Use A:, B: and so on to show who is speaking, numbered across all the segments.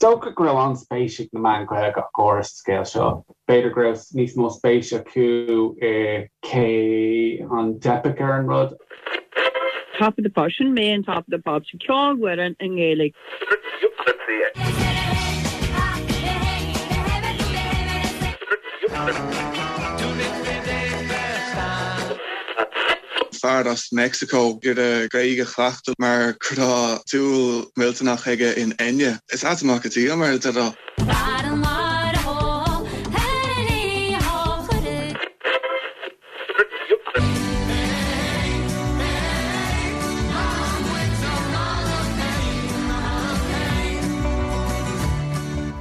A: dócha go raibh an-spéis ag na meáin Ghaeilge ach go háirithe sa scéal seo. B'fhéidir go raibh níos mó spéis acu i cé an dteipfeadh ar an rud.
B: Top of the Pops, sin mé in Top of the Pops, ceolfhoireann i nGaeilge.
C: Fear as Meicsiceo ag iarraidh Gaeilge a chleachtadh mar go raibh dúil mhillteanach aige in Enya. Is ait amach go dtí mar a déarfá.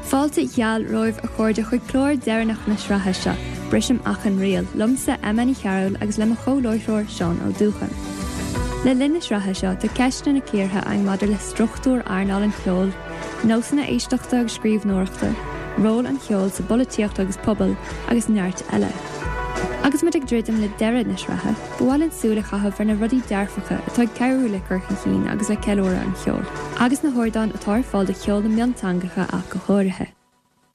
D: Fáilte gheal romhaibh a chairde chuig clár deireanach na sraithe seo, Brisim Achan Riail, liomsa Emma Ní Chearúil agus le mo chomh-láithreoir Seán Ó Dúcháin. Le linn na sraithe seo tá ceisteanna cíortha againn maidir le struchtúr earnáil an cheoil, nósanna éisteachta agus scríbhneoireachta, ról an cheoil sa bpolaitíocht agus pobal, agus neart eile. Agus muid ag druidim le deireadh na sraithe, ba mhaith linn súil a chaitheamh ar na rudaí dearfacha atá ag cabhrú le cur chun cinn agus le ceiliúradh an cheoil, agus na hardáin atá ar fáil do cheol na mionteangacha ach go háirithe.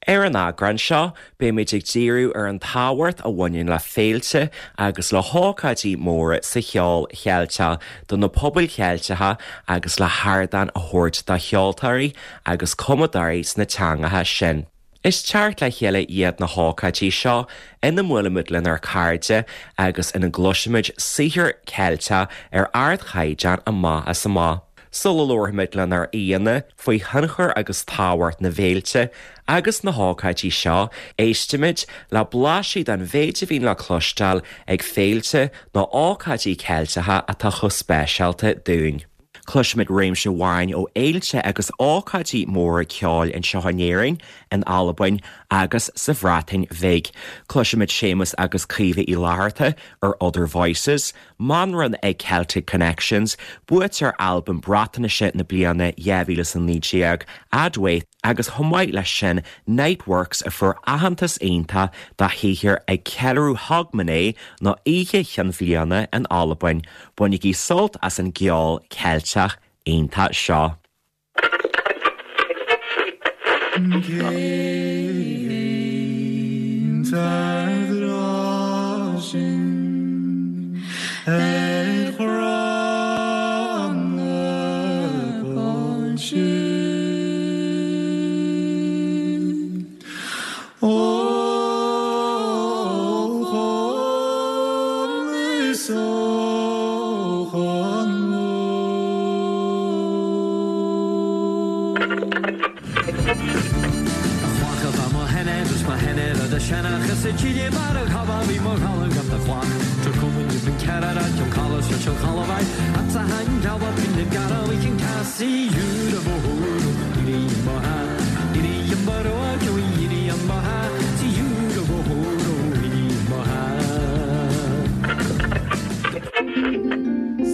E: Ar an eagrán seo, beimid ag díriú ar an tábhacht a bhaineann le féilte agus le hócáidí móra sa cheol Cheilteach do na pobail Cheilteacha agus le hardán a thabhairt do cheoltóirí agus cumadóirí sna teangacha sin. Is teacht le chéile iad na hócáidí seo ina mbuailimid lenár cairde agus ina gcloisimid saothar Ceilteach ar ardchaighdeán amach is amach. Sula labharfaimid lenár aíonna faoi thionchar agus tábhacht na bhféilte agus na hócáidí seo, éistimid le blaiseadh den mhéid a bhíonn le cloisteáil ag féilte nó ócáidí Ceilteacha atá chomh speisialta dúinn. Cloisfimid réimse amhráin ó fhéilte agus ócáidí móra ceoil anseo in Éirinn, in Albain agus sa Bhreatain Bhig. Cloisfimid Séamus agus Caoimhe Uí Fhlatharta ar Other Voices, Manran ag Celtic Connections, buaiteoir Albam Breatnaise na bliana 2019, Adwaith, agus chomh maith leis sin Niteworks a fuair aitheantas iontach dá shaothar ag ceiliúradh Hogmanay nó Oíche Chinn Bhliana in Albain. Bainigí sult as an gceol Ceilteach iontach seo.
F: Cén t-eadra sin ar chrann na báinte? Ó chonn is ó chonn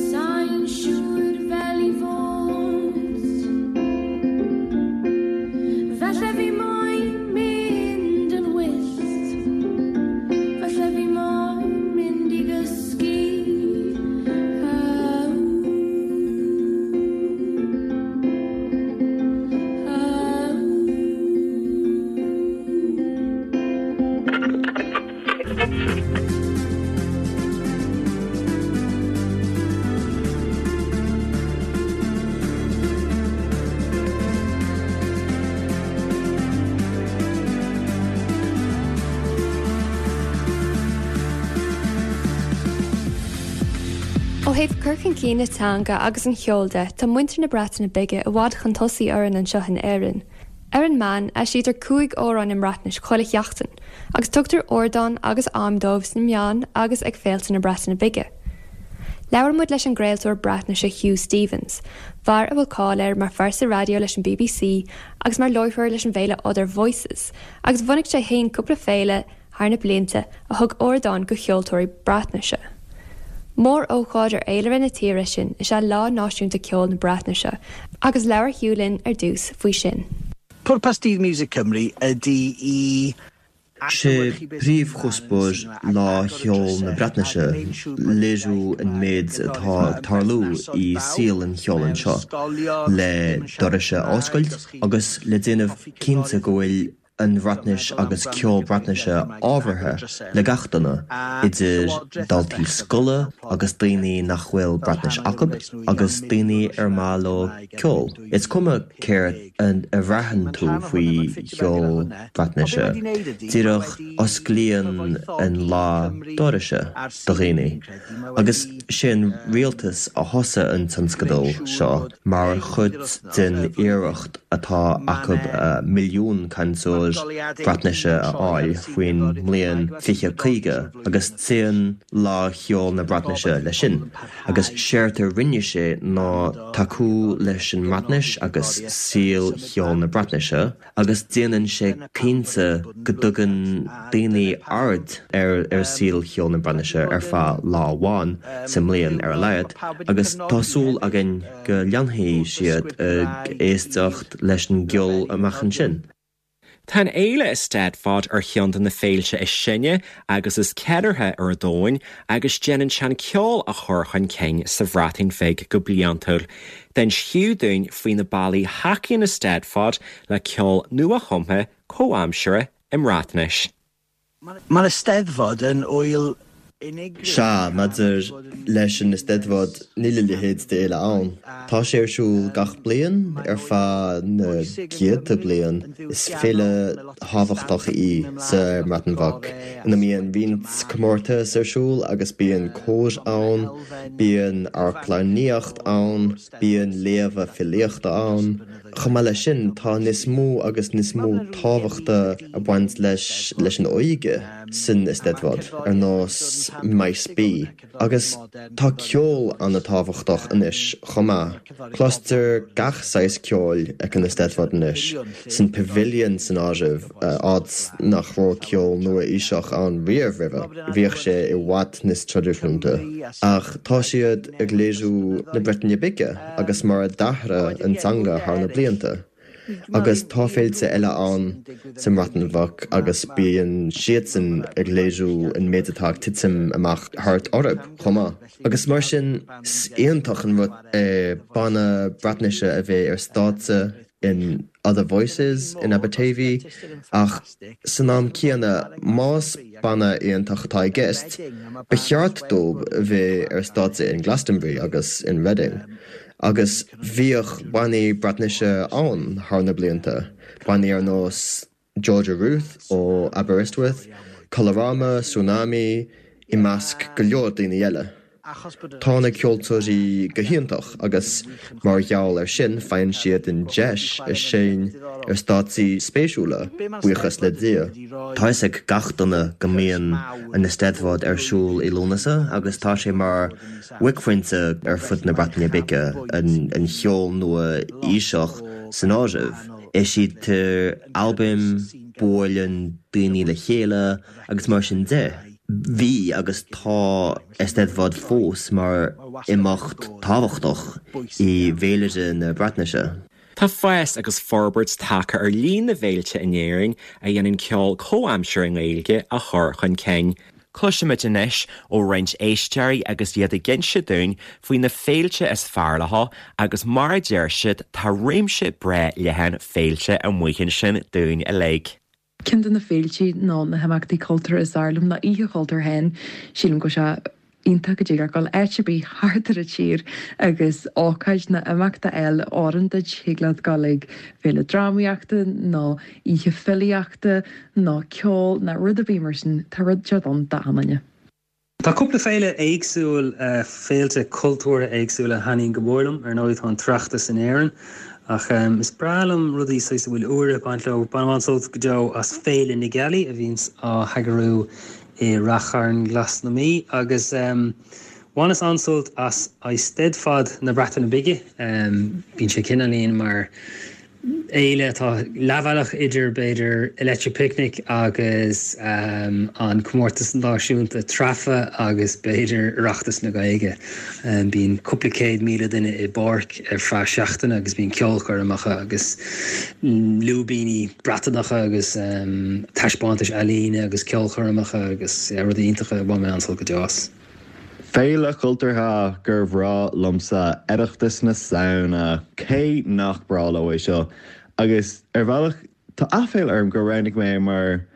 G: Sai'n siŵr fel i fod. Falle fi moyn mynd yn wyllt. Falle fi moyn mynd i gysgu.
D: Ó thaobh cur chun cinn na teanga agus an cheoil de, tá muintir na Breataine Bige i bhfad chun tosaigh orainn anseo in Éirinn. Ar an meán, eisítear 5 amhrán i mBreatnais chuile sheachtain, agus tugtar ardán agus am dóibh sna meáin agus ag féilte na Breataine Bige. Labhair muid leis an gcraoltóir Breatnaise Huw Stephens, fear a bhfuil cáil air mar phearsa raidió leis an bbc agus mar láithreoir leis an bhféile Other Voices, agus bhunaigh sé féin cúpla féile thar na blianta a thug ardán go cheoltóirí Breatnaise. Mór-ócáid ar fhéilire na tíre sin is ea Lá Náisiúnta Ceoil na Breatnaise agus labhair Huw linn ar dtús faoi sin.
H: Pwrpas Dydd Miwsig Cymru ydy i Sé príomhchuspóir Lá Cheoil na Breatnaise léiriú an méid atá ag tarlú i saol an cheoil anseo, le dorais a oscailt agus le déanamh cinnte go bhfuil an Bhreatnais agus ceol Breatnaise ábhartha le gach duine, idir daltaí scoile agus daoine nach bhfuil Breatnais acu agus daoine ar maith leo ceol. Is cuma céard a bhraitheann tú faoi cheol Breatnaise, díreach osclaíonn an lá dorais do dhaoine. Agus sé an rialtas a thosaigh an tionscadal seo mar chuid den iarracht atá acu milliún cainteoir Breatnaise a fháil faoin mbliain 2050 agus téann Lá Cheoil na Breatnaise leis sin. Agus séard a rinne sé ná tacú leis an mBreatnais agus saol cheol na Breatnaise agus déanann sé cinnte go dtugann daoine aird ar saol cheol na Breatnaise ar feadh lá amháin sa mbliain ar a laghad agus tá súil againn go leanfaidh siad ag éisteacht leis an gceol amach ansin.
E: Tá an fhéile Eisteddfod ar cheann de na féilte is sine agus is ceiliúrtha ar an domhan agus déanann sé an ceol a chur chun cinn sa Bhreatain Bheag go bliantúil. D'inis Huw dúinn faoi na bealaí a thacaíonn Eisteddfod le ceol nua-chumtha comhaimseartha i mBreatnais.
I: Mae'r Eisteddfod yn ŵyl unigryw.
H: Sea, maidir leis an Eisteddfod, níl a leithéid d'fhéile ann. Tá sé ar siúl gach bliain ar feadh na gcéadta bliain. Is féile thábhachtach í sa mBreatain Bheag, ina mbíonn roinnt comórtas ar siúl agus bíonn cóir ann, bíonn amharclannaíocht ann, bíonn léamha filíochta ann. Chomh maith leis sin, tá níos mó agus níos mó tábhachta ag baint leis leis an óige san Eisteddfod, ar nós Maes B. Agus tá ceol an-tábhachtach anois chomh maith. Cloistear gach saghas ceoil ag an Eisteddfod anois, san Pavilion san áireamh, áit nach raibh ceol nua-aoiseach ann riamh roimhe, bhíodh sé i bhfad níos traidisiúnta. Ach tá siad ag léiriú na Breataine Bige. agus mar a d'athraigh an teanga thar na blianta. Agus tá féilte eile ann sa mBreatain Bheag agus bíonn siadsan ag léiriú an méid atá ag titim amach thart orthu chomh maith. Agus mar sin, is iontach an rud é banna Breatnaise a bheith ar stáitse in Other Voices in Aberteifi ach san am céanna, más banna iontach atá i gceist, ba cheart dóibh a bheith ar stáitse in Glastonbury agus in Reading. Agus bhíodh bannaí Breatnaise ann thar na blianta, bannaí ar nós Georgia Ruth ó Aberystwyth, Colorama, Sŵnami, i measc go leor daoine eile. Tá na ceoltóirí go hiontach agus mar gheall air sin faigheann siad an deis a seinm ar stáitsí spéisiúla, buíochas le Dia. Tá fhios ag gach duine go mbíonn an Eisteddfod ar siúl i Lúnasa agus tá sé mar bhuaicphointe ar fud na Breataine Bige, an cheol nua-aoiseach san áireamh. Eisítear albaim, buaileann daoine le chéile agus mar sin de. Bhí agus tá Eisteddfod fós mar imeacht tábhachtach i bhféilire na Breatnaise.
E: Tá fás agus forbairt tagtha ar líon na bhféilte in Éirinn a dhéanann ceol comhaimseartha i nGaeilge a chur chun cinn. Cloisfimid anois ó roinnt éisteoirí agus iad ag inse dúinn faoi na féilte is fearr leo agus mar a deir siad tá réimse breá leathan féilte amuigh ansin dúinn uilig.
J: Ceann de na féiltí nó na himeachtaí cultúrtha is fearr liom ná Oíche Chultúir féin. Sílim go bhfuil sé iontach go dtig leat dul áit ar bith thart ar an tír agus ócáid nó imeacht a fháil a oireann duit. Thig leat dul ag féile drámaíochta nó oíche filíochta nó ceol nó rud ar bith mar sin. Tá rud inteacht ann d'achan duine.
K: Tá cúpla féile éagsúil, féilte cultúrtha éagsúla a thaitníonn go mór liom. Ar ndóigh tá an tOireachtas in Éirinn ach is breá liom rudaí saghas a bhfuil úire ag baint leo. Bainim an-sult go deo as Féile na Gealaí a bhíonns á heagrú i Rath Chairn Ghlas na Mí agus bhaineas an-sult as Eisteddfod na Breataine Bige. Bíonn sé cineáilín mar. Fhéile atá leathbhealach idir, b'fhéidir, Electric Picnic agus an Comórtas Náisiúnta Treafa agus b'fhéidir Oireachtas na Gaeilge. Bíonn cúpla 100,000 duine i bpáirc ar feadh seachtaine agus bíonn ceolchoirmeacha agus lúibíní Breatanacha agus taispeántais ealaíne agus ceolchoirmeacha agus rudaí iontacha. Bhain mé an-sult go deo as.
C: Féile chultúrtha gur bhreá liomsa Oireachtas na Samhna. Cé nach breá leo é seo? Agus ar bhealach tá aiféala orm gur roghnaigh mé é mar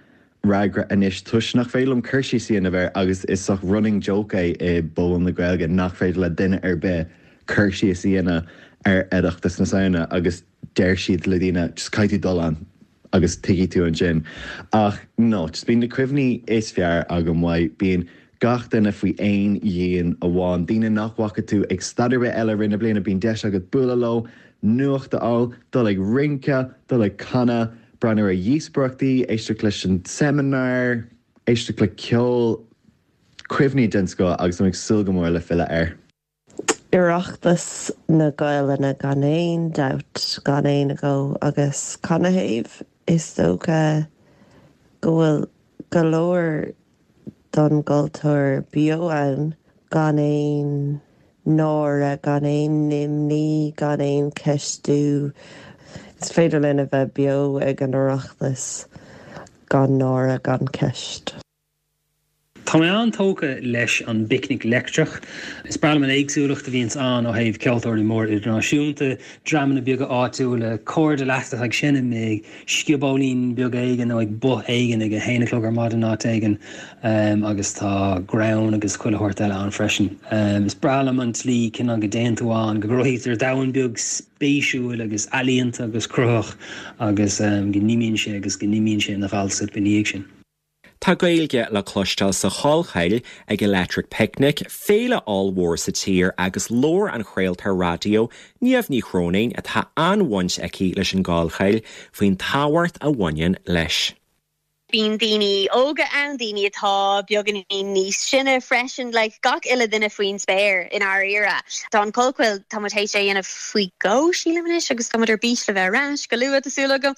C: fhreagra anois toisc nach féidir liom cur síos a dhéanamh air agus is saghas running joke é i bpobal na Gaeilge nach féidir le duine ar bith cur síos a dhéanamh ar Oireachtas na Samhna agus deir siad le daoine just caithfidh tú dul ann agus tuigfidh tú ansin. Ach no, just bíonn na cuimhní is fearr agam uaidh, bíonn gach duine faoi aon dhíon amháin, daoine nach bhfaca tú ag staid ar bith eile i rith na bliana, bíonn deis agat bualadh leo, nuacht a fháil, dul ag rince, dul ag canadh, breathnú ar dhíospóireachtaí, éisteacht leis an seimineár, éisteacht le ceol, cuimhní den scoth agus táim ag súil go mór le filleadh air.
L: Oireachtas na Gaelainne gan aon dabht, gan aon agó. Agus canathaobh? Is dócha go bhfuil go leor don gcultúr beo ann gan aon náire, gan aon imní, gan aon cheistiú. Is féidir linn a bheith beo ag an Oireachtas gan náire, gan ceist.
K: Tá mé an-tógtha leis an bPicnic Leictreach. Is breá liom an éagsúlacht a bhíonns ann ó thaobh ceoltóirí móra idirnáisiúnta, dreamanna beaga áitiúla, cairde leat atá ag seinm ag sciobóilín beag éigin nó ag both éigin ag a haon a chlog ar maidin áit éigin agus tá greann agus chuile shórt eile ann freisin. Is breá liom an tslí cineál go dtéann tú ann, go gcruthaítear domhan beag spéisiúil agus ealaíonta agus cruthaitheach agus go n-imíonn sé agus go n-imíonn sé ina ghal soip ina dhiaidh sin.
E: Tá Gaeilge le cloisteáil sa Chollchoill ag Electric Picnic, féile ollmhór sa tír agus labhair an chraoltóir raidió Niamh Ní Chróinín, atá an-bhaint aici leis an gCollchoill, faoin tábhacht a bhaineann leis.
M: Bíonn daoine óga ann, daoine atá beagáinín níos sine freisin, like gach uile duine faoin spéir i ndáiríre. Tá an Chollchoill, tá muid théis é a dhéanamh faoi dhó sílim anois agus tá muid ar bís le bheith ar ais go luath tá súil agam.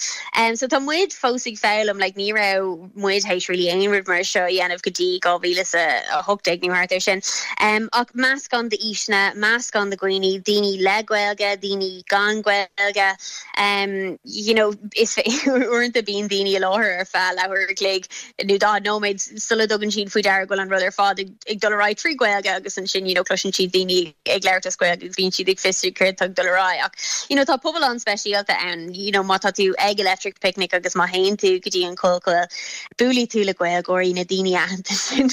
M: So tá muid fós ag foghlaim, like ní raibh muid théis really aon rud mar seo a dhéanamh go dtí 2018 nó thart ar sin. Ach meascán d'aoiseanna, meascán de dhaoine, daoine le Gaeilge, daoine gan Gaeilge, you know is uaireanta bíonn daoine i láthair ar feadh leathuair a chloig nó 40 nóiméad sula dtugann siad faoi deara go bhfuil an rud ar fad ag ag dul ar aghaidh trí Ghaeilge agus ansin you know cloiseann siad daoine ag labhairt as Gaeilge agus bíonn siad ag fiosrú céard atá ag dul ar aghaidh ach you know tá pobal an-speisialta ann you know má tá tú ag Electric Picnic agus má théann tú go dtí an Chollchoill buailfidh tú le Gaeilgeoirí na daoine aitheanta sin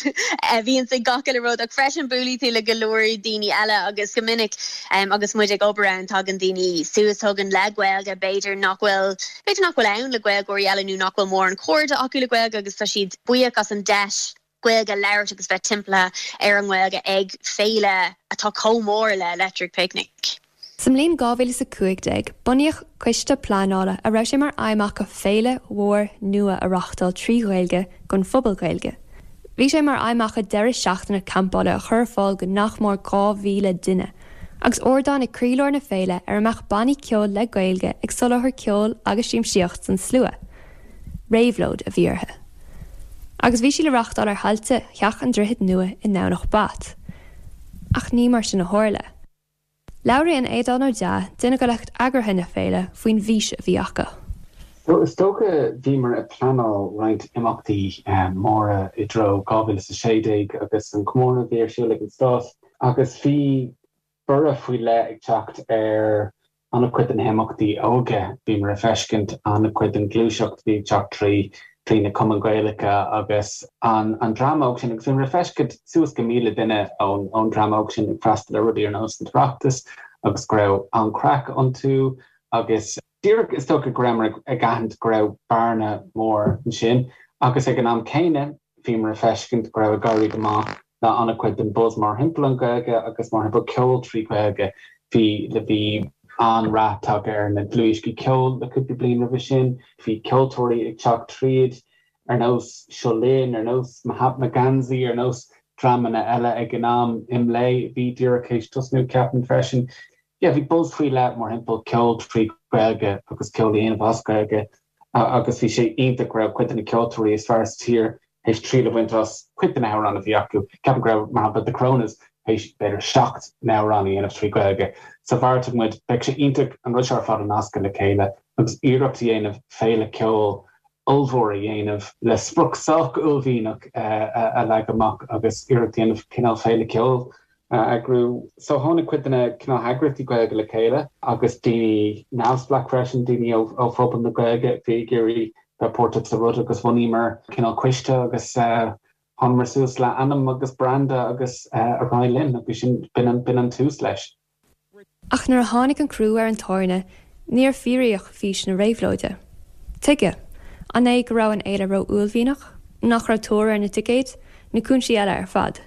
M: a bhíonns ag gach uile rud ach freisin buailfidh tú le go leor daoine eile agus go minic um, agus muid ag obair ann tagann daoine suas chugainn le Gaeilge b'fhéidir nach bhfuil b'fhéidir nach bhfuil ann le Gaeilgeoirí eile nó nach bhfuil mórán cairde acu le Gaeilge agus tá siad buíoch as an deis Gaeilge a labhairt agus bheith timpeallaithe ar an nGaeilge ag féile atá chomh mór le Electric Picnic.
D: Sa mbliain 2015, bunaíodh coiste pleanála a raibh sé mar aidhm acu féile mhór nua a reáchtáil trí Ghaeilge don phobal Gaeilge. Bhí sé mar aidhm acu deireadh seachtaine campála a chur ar fáil do nach mór 2,000 duine, agus ardán ag croílár na féile ar a mbeadh bannaí ceoil le Gaeilge ag soláthar ceoil agus siamsaíocht don slua. Réabhlóid a bhí orthu. Agus bhí sí le reáchtáil ar thailte Theach an Droichid Nua i nDomhnach Bat. Ach ní mar sin a tharla. Labhraíonn Aodán Ó Deá, duine de lucht eagraithe na féile, faoin bhfís a bhí acu.
A: So is dócha bhíomar ag pleanáil roinnt imeachtaí móra i dtreo 2016 agus an comóradh a bhí ar siúl ag an Stát agus bhí borradh faoi leith ag teacht ar an-chuid de na himeachtaí óige. Bhíomar ag feiscint an-chuid den ghluaiseacht a bhí ag teacht trí trí na cumainn Ghaelacha agus an an dream óg sin agus bhíomar ag feiscint suas go 1,000 duine ón ón dream óg sin ag freastal ar rudaí ar nós an tOireachtas agus go raibh an-chraic iontu agus díreach is dócha go rabhamar ag aithint go raibh bearna mór ansin agus ag an am céanna bhíomar ag feiscint go raibh ag éirí go maith le an-chuid den buzz mórthimpeall an Ghaeilge agus mórthimpeall ceol trí Ghaeilge. Bhí le bhí an-rath tagtha ar na dlúthdhioscaí ceoil le cúpla bliain roimhe sin, bhí ceoltóirí ag teacht tríd ar nós Seo Linn, ar nós Mahatma Gandhi, ar nós dreamanna eile ag an am, IMLÉ, bhí díreach théis tosnú ceapaim freisin. Yeah, bhí buzz faoi leith mórthimpeall ceol trí Ghaeilge agus ceol a dhéanamh as Gaeilge agus bhí sé iontach go raibh cuid de na ceoltóirí is fearr sa tír théis triail a bhaint as cuid de na hamhráin a bhí acu. Ceapaim go raibh, mar shampla, The Coronas théis b'fhéidir 7 n-amhrán a dhéanamh trí Ghaeilge. So bheartaigh muid, beidh sé iontach an rud seo ar fad a nascadh le chéile agus iarracht a dhéanamh féile ceoil ollmhór a dhéanamh le sprioc sách uaillmhianach a leagadh amach agus iarracht a dhéanamh cineál féile ceoil a eagrú. So tháinig cuid de na cineál heagraíochtaí Gaeilge le chéile agus daoine neamhspleách freisin, daoine ó phobal na Gaeilge a bhí ag iarraidh bheith páirteach sa rud agus bhunaíomar cineál coiste agus thángamar suas le ainm agus branda agus ar aghaidh linn agus sin, b'in an tús leis.
D: Ach nuair a tháinig an crú ar an tairne, níor fíoraíodh fís na réabhlóide. Tuige? An é go raibh an fhéile ró-uaillmhianach? Nach raibh tóir ar na ticéid? Nó cúinsí eile ar fad?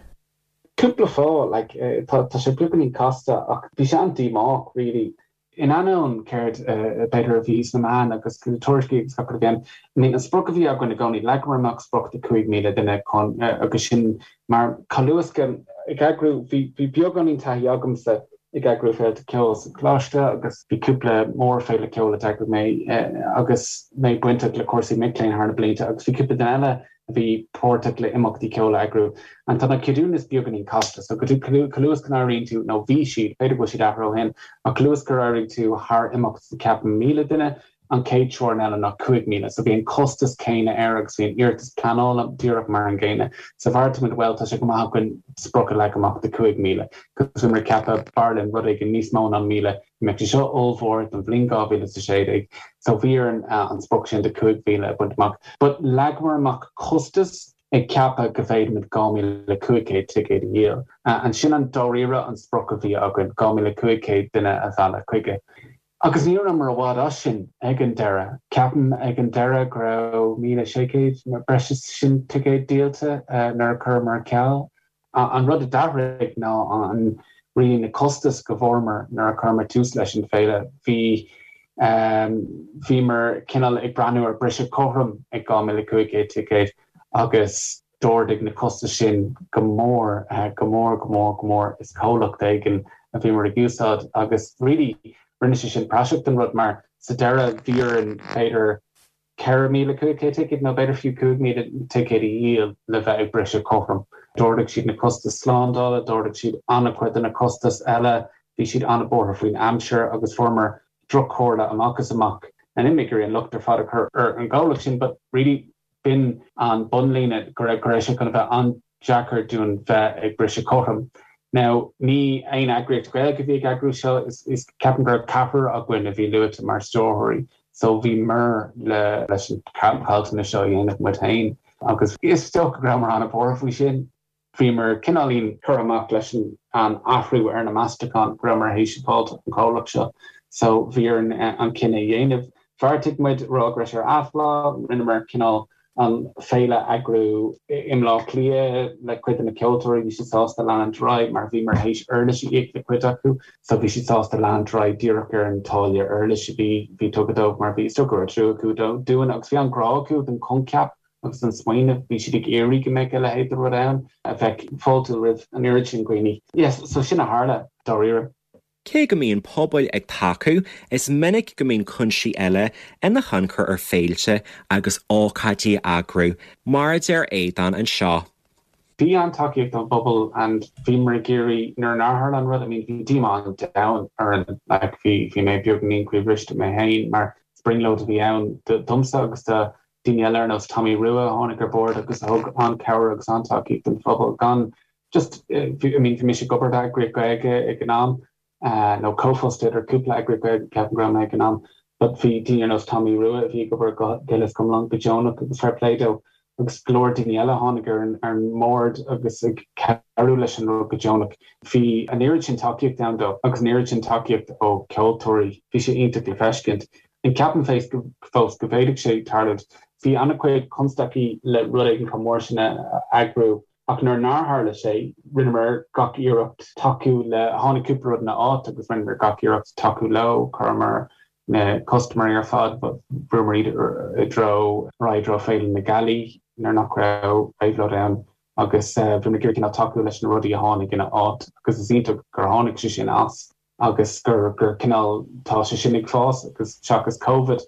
A: Cúpla fáth, like, tá sé beagáinín casta ach bhí sé an-díomách really. In ainneoin céard b'fhéidir a bhí sna meáin agus na tuairiscí agus gach rud a bhí ann, I mean an sprioc a bhí againn i gcónaí, leagamar amach sprioc de 5,000 duine chun agus sin mar chomh luath is go ag eagrú, bhí bhí beagáinín taithí agamsa ag eagrú féilte ceoil sa choláiste agus bhí cúpla mórfhéile ceoil a d'eagraigh mé agus mé bainteach le cúrsaí mic léinn thar na blianta agus bhí cúpla duine eile a bhí páirteach le imeachtaí ceoil a eagrú. And tá na ceadúnais beagáinín casta, so go chomh luath is go n-éiríonn tú, nó bhí siad, b'fhéidir go bhfuil siad athraithe ó shin, ach chomh luath is gur éirigh tú thar imeacht ceapaim 1,000 duine, an chéad teorainn eile ná 5,000. So bhí an costas céanna air agus bhí an iarratas pleanála díreach mar an gcéanna. So bheartaigh muid, bhuel, tá sé go maith againn sprioc a leagan amach de 5,000, cos bhíomar ag ceapadh b'fhearr linn rud éigin níos mó ná 1,000, Mbeadh sé seo ollmhór don bhliain 2016 so bhí orainn an sprioc sin de 5,000 a bhaint amach. But leagamar amach costas ag ceapadh go bhféadfaimid 2,500 ticéad a dhíol. And sin an dáiríre an sprioc a bhí againn, 2,500 duine a mhealladh chuige. Agus ní rabhamar i bhfad as sin ag an deireadh. Ceapaim ag an deireadh go raibh 1,600 nó breis is sin ticéad díolta nuair a chuireamar ar ceal. An rud a d'athraigh ná an really na costais go bhfuaireamar nuair a chuireamar tús leis an bhféile. Bhí bhíomar cineál ag breathnú ar briseadh cothrom ag 2,500 ticéad agus d'ardaigh na costais sin go mór, go mór, go mór, go mór. Is comhlacht éigin a bhíomar ag úsáid agus really rinne sé sin praiseach den rud mar sa deireadh bhí orainn b'fhéidir 4,500 ticéad nó b'fhéidir fiú 5,000 ticéad a dhíol le bheith ag briseadh cothrom. D'ardaigh siad na costais slándála, d'ardaigh siad an-chuid de na costais eile, bhí siad an-bhuartha faoin aimsir agus fuaireamar droch-chomhairle amach is amach. Níl mé ag iarraidh an locht ar fad a chur ar an gcomhlacht sin but really b'in an bunlíne go raibh go raibh sé chun a bheith an deacair dúinn bheith ag briseadh cothrom. Now, ní aon eagraíocht Ghaeilge a bhí ag eagrú seo, is ceapaim go raibh ceathrar againn a bhí luaite mar stiúrthóirí, so bhíomar le leis an caillteanas seo a dhéanamh muid féin agus is dócha go rabhamar an-bhuartha faoi sin. Bhíomar cineáilín curtha amach leis an athrú ar na meastacháin go rabhamar théis a fháilt ón chomhlacht seo, so bhí orainn an cinneadh a dhéanamh. Bheartaigh muid rá go raibh sé ar athlá, rinneamar cineál an féile a eagrú i mBleá Cliath le cuid de na ceoltóirí, bhí siad sásta leanúint ar aghaidh mar bhíomar théis uirlis a íoc le cuid acu so bhí siad sásta leanúint ar aghaidh díreach ar an táille uirlis a bhí bhí tugtha dóibh mar bhí is dócha go raibh trua acu dúinn agus bhí an-ghrá acu don choincheap agus don smaoineamh, bhí siad ag iarraidh go mbeadh a leithéid de rud ann a bheadh fáiltiúil roimh an oiread sin dhaoine. Yes, so sin a tharla dáiríre.
E: Cé go mbíonn pobail ag tacú, is minic go mbíonn cúinsí eile ina thionchar ar féilte agus ócáidí a eagrú, mar a deir Aodán anseo.
A: Bhí an-tacaíocht ón bpobal and bhíomar ag iarraidh, nuair nár tharla an rud, I mean bhí díomá an domhain orainn, like bhí, bhí mé beagáinín croíbhriste mé féin mar brionglóid a bhí ann domsa agus do daoine eile ar nós Tommy Rua a tháinig ar bord agus a thug an-chabhair agus an-tacaíocht don phobal gan just, I mean, bhí mise ag obair d'eagraíocht Gaeilge ag an am, nó comhfhostaí idir cúpla eagraíocht Gaeilge ceapaim go raibh mé ag an am, but bhí daoine ar nós Tommy Rua a bhí ag obair go huile is go hiomlán go deonach agus fair play dó agus go leor daoine eile a tháinig ar an ar an mbord agus ag cabhrú leis an rud go deonach. Bhí an oiread sin tacaíocht ann dó agus an oiread sin tacaíocht ó cheoltóirí, bhí sé iontach le feiscint. And ceapaim fós go bhféadfadh sé tarlúint. Bhí an-chuid constaicí le rud éigin chomh mór sin a eagrú. Ach nuair nár tharla sé, rinneamar gach iarracht tacú le, tháinig cúpla rud ina áit agus rinneamar gach iarracht tacú leo, chuireamar na custaiméirí ar fad, bhrúamar iad i dtreo, ar aghaidh i dtreo Féile na Gealaí nuair nach raibh réabhlóid ann agus bhíomar ag iarraidh cineál tacú leis na rudaí a tháinig ina áit agus is iontach gur tháinig sé sin as. agus gur gur cineál tá sé sin ag fás agus seachas Covid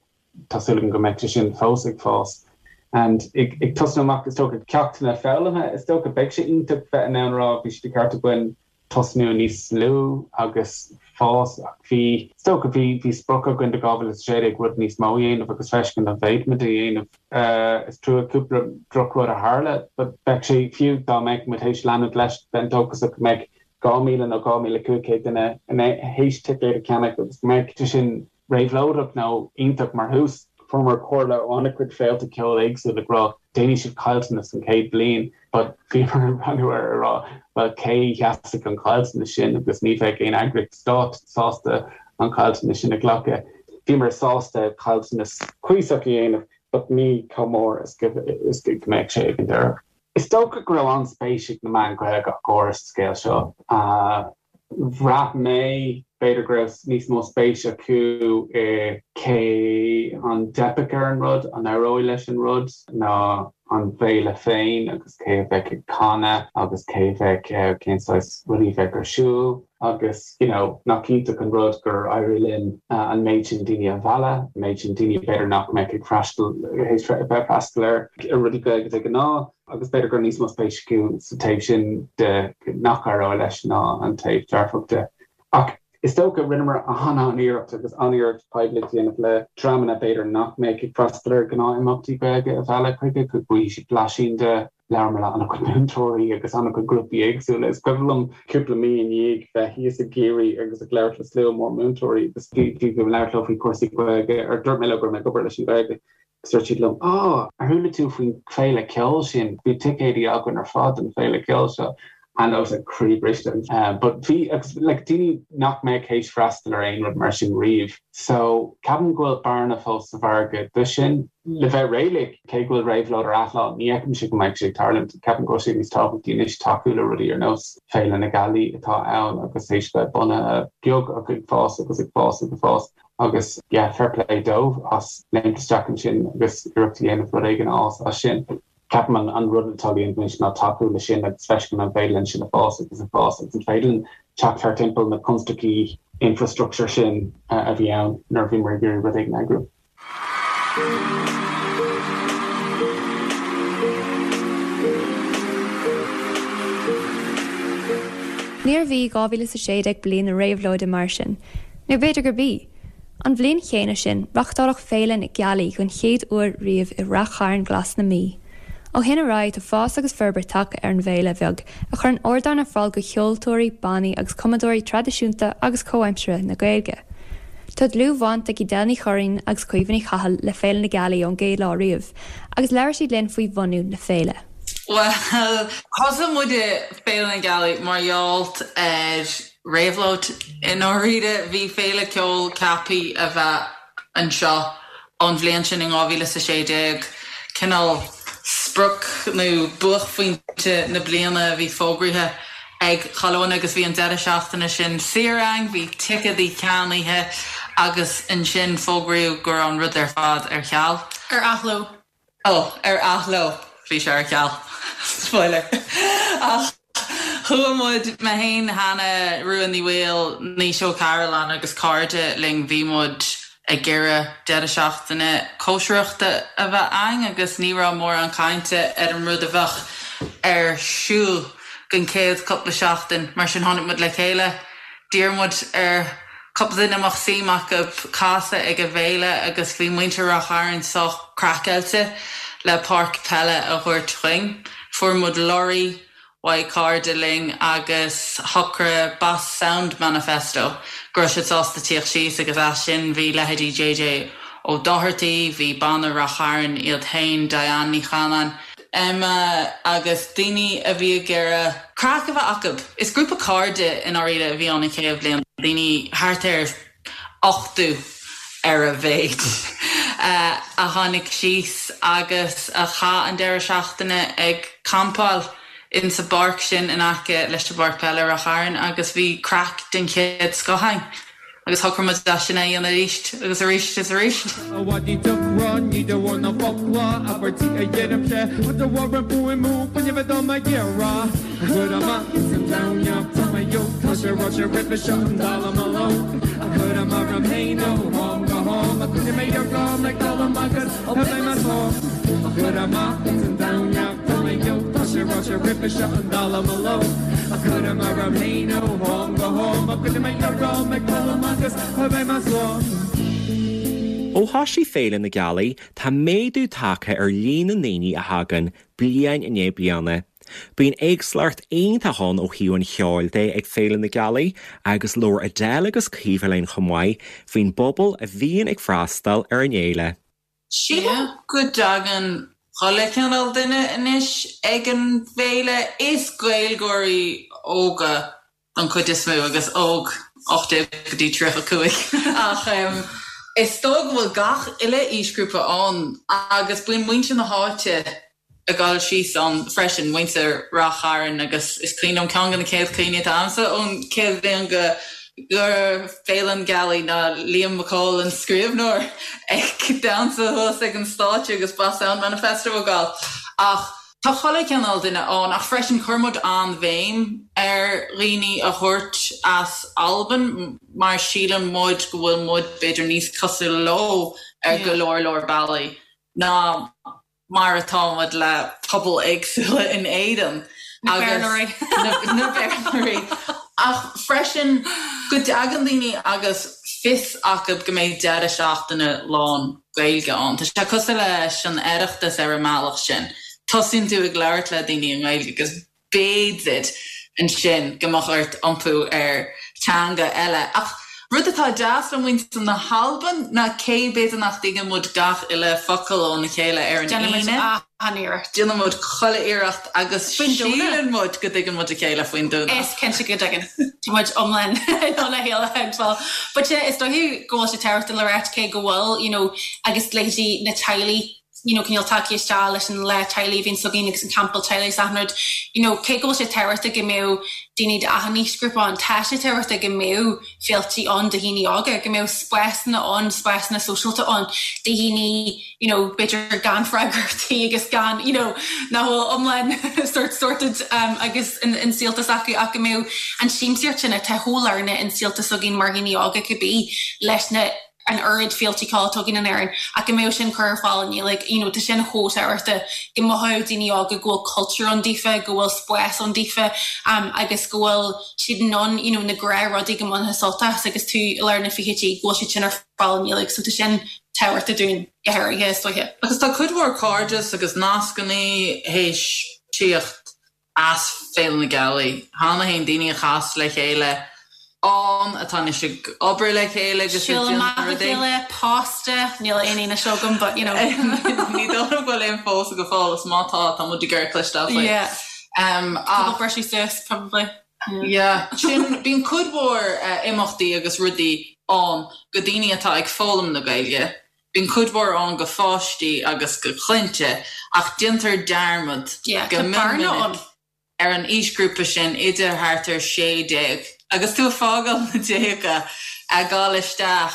A: tá súil agam go mbeidh sé sin fós ag fás. And ag ag tosnú amach is dócha ceachtanna foghlamtha is dócha beidh sé iontach bheith in ann a rá bhí sé de cheart againn tosnú níos lú agus fás ach bhí is dócha bhí bhí sprioc againn do 2016 rud níos mó a dhéanamh agus feiscint an bhféadfaimid a dhéanamh. Is trua cúpla drochrud a tharla but bheadh sé fiú dá mbeadh muid théis leanúint leis bheinn dóchasach go mbeadh 2,000 nó 2,500 duine théis ticéad a cheannach agus go mbeadh sé sin réabhlóideach nó iontach mar thús. Fuaireamar comhairle ó an-chuid féilte ceoil éagsúla ag rá déanfaidh siad caillteanas an chéad bhliain but bhíomar ag breathnú air ag rá bhuel cé a sheasfaidh an caillteanas sin agus ní bheadh aon eagraíocht stáit sásta an caillteanas sin a ghlacadh. Bhíomar sásta caillteanas cuíosach a dhéanamh but ní chomh mór is go mbeadh sé ag an deireadh. Is dócha go raibh an-spéis ag na meáin Ghaeilge ach go háirithe sa scéal seo. Bhraith mé, b'fhéidir go raibh níos mó spéis acu i cé an dteipfeadh ar an rud, an éireoidh leis an rud, ná an bhféile féin agus cé a bheadh ag canadh agus cé a bheadh, cén saghas rudaí a bheadh ar siúl agus you know nach iontach an rud gur éirigh linn an méid sin daoine a mhealladh, an méid sin daoine b'fhéidir nach mbeadh ag freastal, théis bheith ag freastal ar rudaí Gaeilge de ghnáth. Agus b'fhéidir go raibh níos mó spéis acu sa taobh sin de nach éireoidh leis ná an taobh dearfach de. Ach is dócha, rinneamar an-an-iarracht agus an-iarracht poiblíocht a dhéanamh le dreamanna b'fhéidir nach mbeadh ag freastal ar ghnáth-imeachtaí Gaeilge a mhealladh chuige, go bhfaighidh siad blaisín de. Labhramar le an-chuid múinteoirí agus an-chuid grúpaí éagsúla. Is cuimhin liom cúpla mí i ndiaidh bheith thíos i gCiarraí agus ag labhairt le slua mór múinteoirí agus bhí bhí mé ag labhairt leo faoi chúrsaí Gaeilge, ar dúirt mé leo go raibh mé ag obair leis an Ghaeilge. Agus dúirt siad liom, Á, ar chuala tú faoin féile ceoil sin? Bhí ticéidí againn ar fad don féile ceoil seo. And I was like croí briste. But bhí, agus like daoine nach mbeadh théis freastal ar aon rud mar sin riamh. So ceapaim go bhfuil bearna fós sa mhargadh do sin. Le bheith réalaíoch, cé go bhfuil réabhlóid ar athlá, ní fheicimse go mbeidh sé ag tarlúint. Ceapaim go bhfuil sé níos tábhachtaí anois tacú le rudaí ar nós Féile na Gealaí atá ann agus théis bheith bunaithe beag ach ag fás agus ag fás agus ag fás. Agus yeah, fair play dóibh as léimt isteach ansin agus iarracht a dhéanamh rud éigin a fhás as sin. Ceapaim an an rud atá le déanamh anois ná tacú le sin agus feiscint an féidir linn sin a fás agus a fás agus an féidir linn teacht thar timpeall na constaicí infrastructure sin a bhí ann nuair a bhíomar ag iarraidh rud éigin a eagrú.
D: Níorbh í 2016 bliain na réabhlóide mar sin, nó b'fhéidir gurb í. An bhliain chéanna sin, reáchtáladh Féile na Gealaí den chéad uair riamh i Rath Chairn Glas na Mí. Ó shin ar aghaidh tá fás agus forbairt tagtha ar an bhféile bheag a chuireann ardán ar fáil do cheoltóirí, bannaí agus cumadóirí traidisiúnta agus comhaimseartha na Gaeilge. Tá dlúthbhaint ag Edel Ní Churraoin agus Caoimhe Ní Chathail le Féile na Gealaí ón gcéad lá riamh agus labhair siad linn faoi bhunú na féile.
N: Bhuel, thosaigh muide Féile na Gealaí mar gheall ar réabhlóid i ndáiríre. Bhí féile ceoil ceaptha a bheith anseo ón bhliain sin in 2016, cineál sprioc nó buaicphointe na bliana a bhí fógraithe ag chuile dhuine agus bhí an deireadh seachtaine sin saor againn, bhí ticéadaí ceannaithe agus ansin fógraíodh go raibh an rud ar fad ar ceal.
O: Ar athló.
N: Ó, ar athló, bhí sé ar ceal. Spoiler. Ach chuaigh muid, mé féin, Hannah, Rua Ní Bhaoill, Naoise Ó Cairealláin agus cairde linn, bhí muid ag iarraidh deireadh seachtaine cóisireachta a bheith againn agus ní raibh mórán cainte ar an rud a bheadh ar siúl don chéad cúpla seachtain. Mar sin tháinig muid le chéile, d'iarr muid ar cúpla duine a mbeadh suim acu casadh ag an bhféile agus bhí muintir Ráth Chairn sách craiceáilte le páirc peile a thabhairt dhuinn. Fuair muid lorry uaidh cairde linn agus shocraigh Bass Sound Manifesto go raibh siad sásta tíocht síos agus as sin bhí leithéidí JJ Ó Dochartaigh, bhí Banna Ráth Chairn iad féin, Diane Ní Chanáin, Emma agus daoine a bhí ag iarraidh craic a bheith acu. Is grúpa cairde i ndáiríre a bhí ann an chéad bhliain, daoine thart ar 80 ar a mhéid a tháinig síos agus a chaith an deireadh seachtaine ag campáil insa bpáirc sin in aice leis an bpáirc peile i Ráth Chairn agus bhí craic den chéad scoth ann. Agus shocraigh muid é sin a dhéanamh arís agus arís is arís. A mhaidí deocra, ní de bharr na bhfocla, abairtí a dheirimse, ach de bharr an fuaimniú fuinnimh atá mé ag iarraidh a chur amach ins an domhan.
F: jóc Tá sé ráite roimhe seo an dallamullóg A chuirim orm fhéin ó am go ham A choinnigh mé orm ag dul amach agus beidh mé slán A chur amach ins an domhan dallamullóg Tá sé ráite roimhe seo an dallamullóg A chuirim orm fhéin ó am go ham A choinnigh mé orm ag dul amach agus beidh mé slán.
E: Ó thosaigh Féile na Gealaí, tá méadú tagtha ar líon na ndaoine a thagann, bliain i ndiaidh bliana. Bíonn éagsúlacht iontach ann ó thaobh an cheoil de ag Féile na Gealaí agus labhair Adele agus Caoimhe linn chomh maith faoin bpobal a bhíonn ag freastal ar an fhéile.
N: Sílim go dtagann chuile chineál duine anois ag an bhféile. Is Gaeilgeoirí óga don chuid is mó, agus óg, 18 go dtí 35, ach is dóigh go bhfuil gach uile aoisghrúpa ann agus bíonn muintir na háite ag dul síos ann freisin, muintir Rath Chairn agus is cuimhin liom ceann de na céad chuimhní atá agamsa ón chéad bhliain go Féile na Gealaí ná Liam Mac Cóil an scríbhneoir ag damhsa thuas ag an stáitse agus Boss Sound Manifesto ag gabháil ach Tá chuile chineál duine ann ach freisin chuir muid an-bhéim ar dhaoine a thabhairt as Albain mar síleann muid go bhfuil muid b'fhéidir níos cosúla leo ar go leor leor bealaí ná mar atá muid le pobail éagsúla in Éirinn agus na Béarlóirí. Ach freisin go dtagann daoine agus fios acu go mbeidh deireadh seachtaine lán Gaeilge ann. Tá sé cosúil leis an Oireachtas ar an mbealach sin. Tosaíonn tú ag labhairt le daoine i nGaeilge agus b'fhéidir ansin go mbeadh ort iompú ar teanga eile. Ach rud atá deas le muintir na hAlban ná cé b'fhéidir nach dtuigeann muid gach uile focal óna chéile ar an Aoine,
O: Déanann muid an-iarracht.
N: Déanann muid chuile iarracht agus síleann muid go dtuigeann muid a chéile faoin Domhnach.
O: Is cinnte go dtuigeann. Tá muid iomlán in ann a chéile a thuigbheáil. But yeah, is dóiche go bhfuil sé tábhachtach le ráit cé go bhfuil, you know, agus leithéidí na teaghlaigh, you know, cineál tagtha isteach leis an lá teaghlaigh a bhíonns againn agus an campáil teaghlaigh is achan rud, you know, cé go bhfuil sé tábhachtach go mbeadh daoine d'achan aoisghrúpa ann, tá sé tábhachtach go mbeadh féiltí ann do dhaoine óga, go mbeadh spásanna ann, spásanna sóisialta ann do dhaoine, you know, b'fhéidir gan freagrachtaí agus gan, you know, nach bhfuil iomlán sort sorted um, agus in, in saolta s'acu ach go mbeadh an siamsaíocht sin atá chomh lárnach in saolta s'againn mar dhaoine óga cibé leis na an oiread féiltí ceoil atá againn in Éirinn ach go mbeadh sin curtha ar fáil i nGaeilge, you know, tá sin chomh tábhachtach go mothódh daoine óga go bhfuil cultúr ann daofa, go bhfuil spás ann daofa um, agus go bhfuil siad in ann, you know, na gnáthrudaí go mbainfeá sult as agus tú i lár na fichidí, go bhfuil siad sin ar fáil i nGaeilge, so tá sin tábhachtach dúinn go háirithe, is dóiche.
N: Agus tá cuid mhór cairdeas agus nascannaí théis tíocht as Féile na Gealaí cheana féin, daoine a chas le chéile ann, atá anois ag obair le chéile agus
O: ag déanamh rudaí. Siúl amach le chéile, pósta, níl aon fhianaise agam but you know.
N: Ní dóigh liom go bhfuil aon phósadh go fóill is má tá, tá muid ag iarraidh cloisteáil faoi.
O: Yeah. Cúpla briseadh suas probably.
N: Yeah. Sin, bíonn cuid mhór imeachtaí agus rudaí ann go daoine atá ag foghlaim na Gaeilge. Bíonn cuid mhór ann go pháistí agus go clainne ach déantar dearmad go mion minic ar an aoisghrúpa sin idir thart ar 16 agus tú ag fágáil na déaga, ag gabháil isteach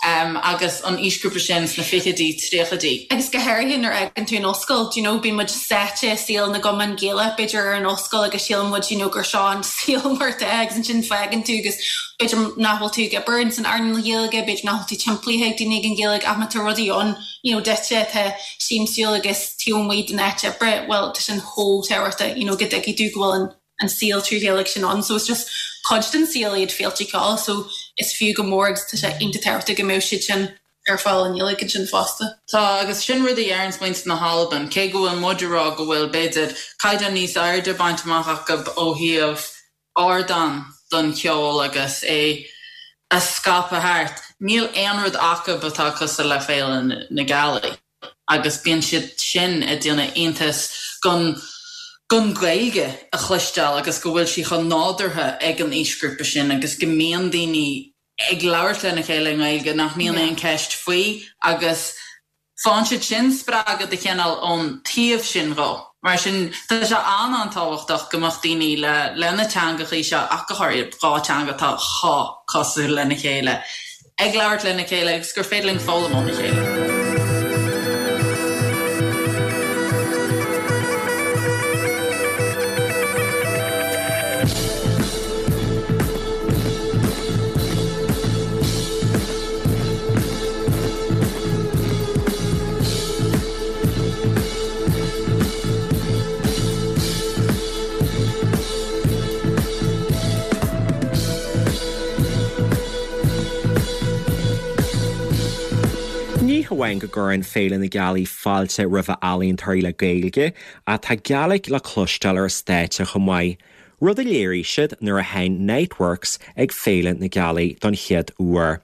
N: agus an aoisghrúpa sin sna fichidí, tríochaidí.
O: Agus go háirithe nuair a fhágann tú an ollscoil, do you know, bíonn muid sáite i saol na gcumann Gaelach b'fhéidir ar an ollscoil agus síleann muid you know gur seo an saol mar atá agus ansin fágann tú agus b'fhéidir nach bhfuil tú ag obair ins an earnáil Ghaeilge, b'fhéidir nach bhfuil tú timpeallaithe ag daoine ag an Ghaeilge ach má tá rudaí ann you know duitse atá siamsúil agus taobh amuigh den áit oibre, bhuel tá sin chomh tábhachtach you know go dtuigfidh tú go bhfuil an an saol trí Ghaeilge sin ann so it's just cuid den saol iad féilte ceoil so is fiú go mór agus tá sé iontach tábhachtach go mbeadh siad sin ar fáil i nGaeilge ansin fosta.
N: Tá, agus sin rud a dheireanns muintir na hAlban, cé go bhfuil muid ag rá go bhfuil, b'fhéidir, caighdeán níos airde bainte amach acu ó thaobh ardán don cheol agus é a scaipeadh thart. Níl aon rud acu atá cosúil le Féile na Gealaí agus bíonn siad sin ag déanamh iontas gon gon Ghaeilge a chloisteáil agus go bhfuil sí chomh nádúrtha ag an aoisghrúpa sin agus go mbíonn daoine ag labhairt lena chéile i nGaeilge nach mbíonn aon cheist faoi agus Faigheann siad sin spreagadh de chineál ón taobh sin dhó. Mar sin, tá sé an-an-tábhachtach go mbeadh daoine le le na teangachaí seo, ach go háirithe 2 teanga atá chomh cosúil lena chéile, ag labhairt lena chéile agus gur féidir linn foghlaim óna chéile.
E: hamháin go gcuireann Féile na Gealaí fáilte roimh ealaíontóirí le Gaeilge, ach tá Gaelic le cloisteáil ar an stáitse chomh maith, rud a léirigh siad nuair a sheinn Niteworks ag Féile na Gealaí don chéad uair.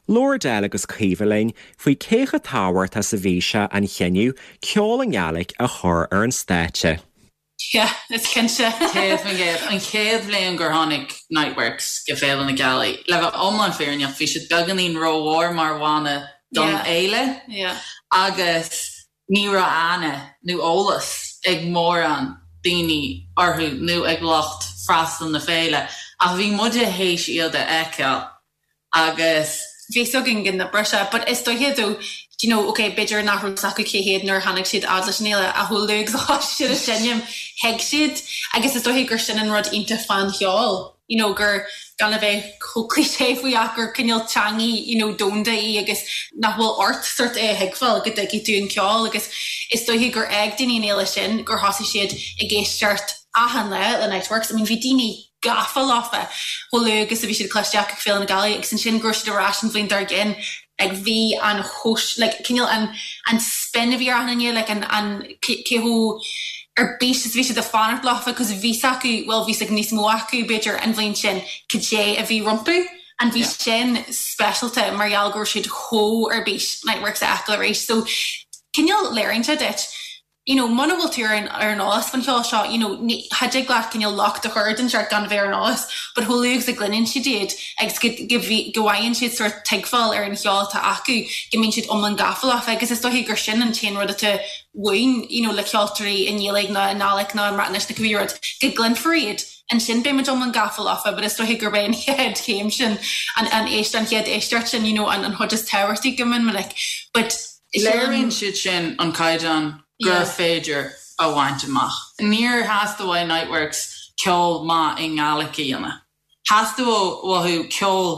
E: Labhair Edel agus Caoimhe linn faoi cé chomh tábhachtach is a bhí sé an chinneadh ceol i nGaeilge a chur ar an stáitse.
O: Yeah, is cinnte.
N: 100%. An chéad bhliain gur tháinig Niteworks go Féile na Gealaí, le bheith iomlán fírinneach, bhí siad beagáinín rómhór mar bhanna don fhéile agus ní raibh aithne nó eolas ag mórán daoine orthu nó ag lucht freastail na féile ach bhí muide théis iad a fheiceáil agus
O: bhí 'fhios againn go n-oibreodh sé but is dóiche though do you know ok b'fhéidir nach raibh 'fhios acu cé hiad nuair a tháinig siad fhad leis an fhéile ach chomh luath agus a thosaigh siad ag seinm thuig siad agus is dóiche gur sin an rud iontach fán cheol you know gur gan a bheith chomh cliché faoi ach gur cineál teangaidh you know domhanda í agus nach bhfuil ort sort é a thuigbheáil go dtuigfidh tú an ceol agus is dóiche gur fhág daoine an fhéile sin gur thosaigh siad ag éisteacht achan lá le Niteworks I mean bhí daoine gafa leofa chomh luath agus a bhí siad cloiste acu ag Féile na Gealaí agus ansin go raibh siad ar ais an bhliain dár gcionn like bhí an chóis like cineál an an spin a bhí ar achan duine like an an cé chomh ar bís is a bhí siad ag fanacht leofa cos bhí 's acu bhuel bhí 's ag níos mó acu b'fhéidir an bhliain sin cad é a bhí rompu and bhí sin speisialta mar gheall go raibh siad chomh ar bís Niteworks a fheiceáil arís so cineál léiríonn sé duit you know muna bhfuil tú ar an ar an eolas faoin cheol seo you know ní cha dtig leat cineál locht a chur den seort gan a bheith ar an eolas but chomh luath agus a gcluineann siad iad agus go go bhí go bhfaigheann siad sort tuigbheáil ar an cheol atá acu go mbíonn siad iomlán gafa leofa agus is dóiche gur sin an t-aon rud atá uainn you know le ceoltóirí i nGaeilge nó i nGàidhlig nó i mBreatnais nó cibé rud go gcluinfear iad ansin beidh muid iomlán gafa leofa but is dóiche gurb é an chéad chéim sin an an éist an chéad éisteacht sin you know an an chuid is tábhachtaí go mion minic but
N: Léiríonn siad sin an caighdeán gur féidir a bhaint amach. Níor theastaigh uaidh Niteworks ceol maith i nGàidhlig a dhéanamh. Theastaigh uathu ceol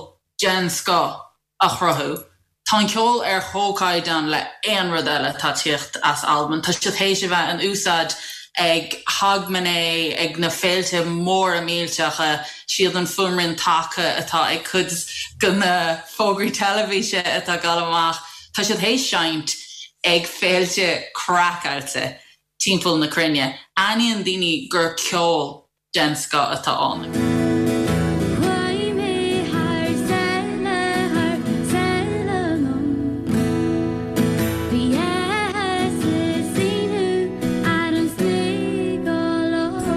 N: den scoth a chruthú. Tá an ceol ar chomhchaighdeán le aon rud eile atá ag tíocht as Albain. Tá siad théis a bheith in úsáid ag Hogmanay, ag na féilte móra millteacha, siad an fuaimrian taca atá ag cuid de na fógraí teilifíse atá ag dul amach. Tá siad théis seinnt ag féilte craiceáilte timpeall na cruinne. Aithníonn daoine gur ceol den scoth atá ann.
G: Chuaigh mé thar sáile, thar sáile liom. Bhí áthas is ionadh ar an sniogallach.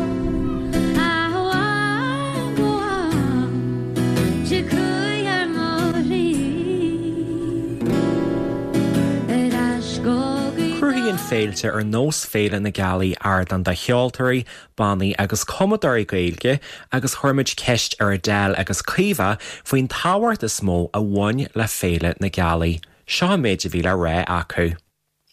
G: Amháin go bhfuil sé chuaigh ar mo shlí.
E: Cruthaíonn féilte ar nós Féile na Gealaí ardán do cheoltóirí, bannaí agus cumadóirí Gaeilge agus chuir muid ceist ar Edel agus Caoimhe faoin tábhacht is mó a bhain le Féile na Gealaí. Seo an méid a bhí le rá acu.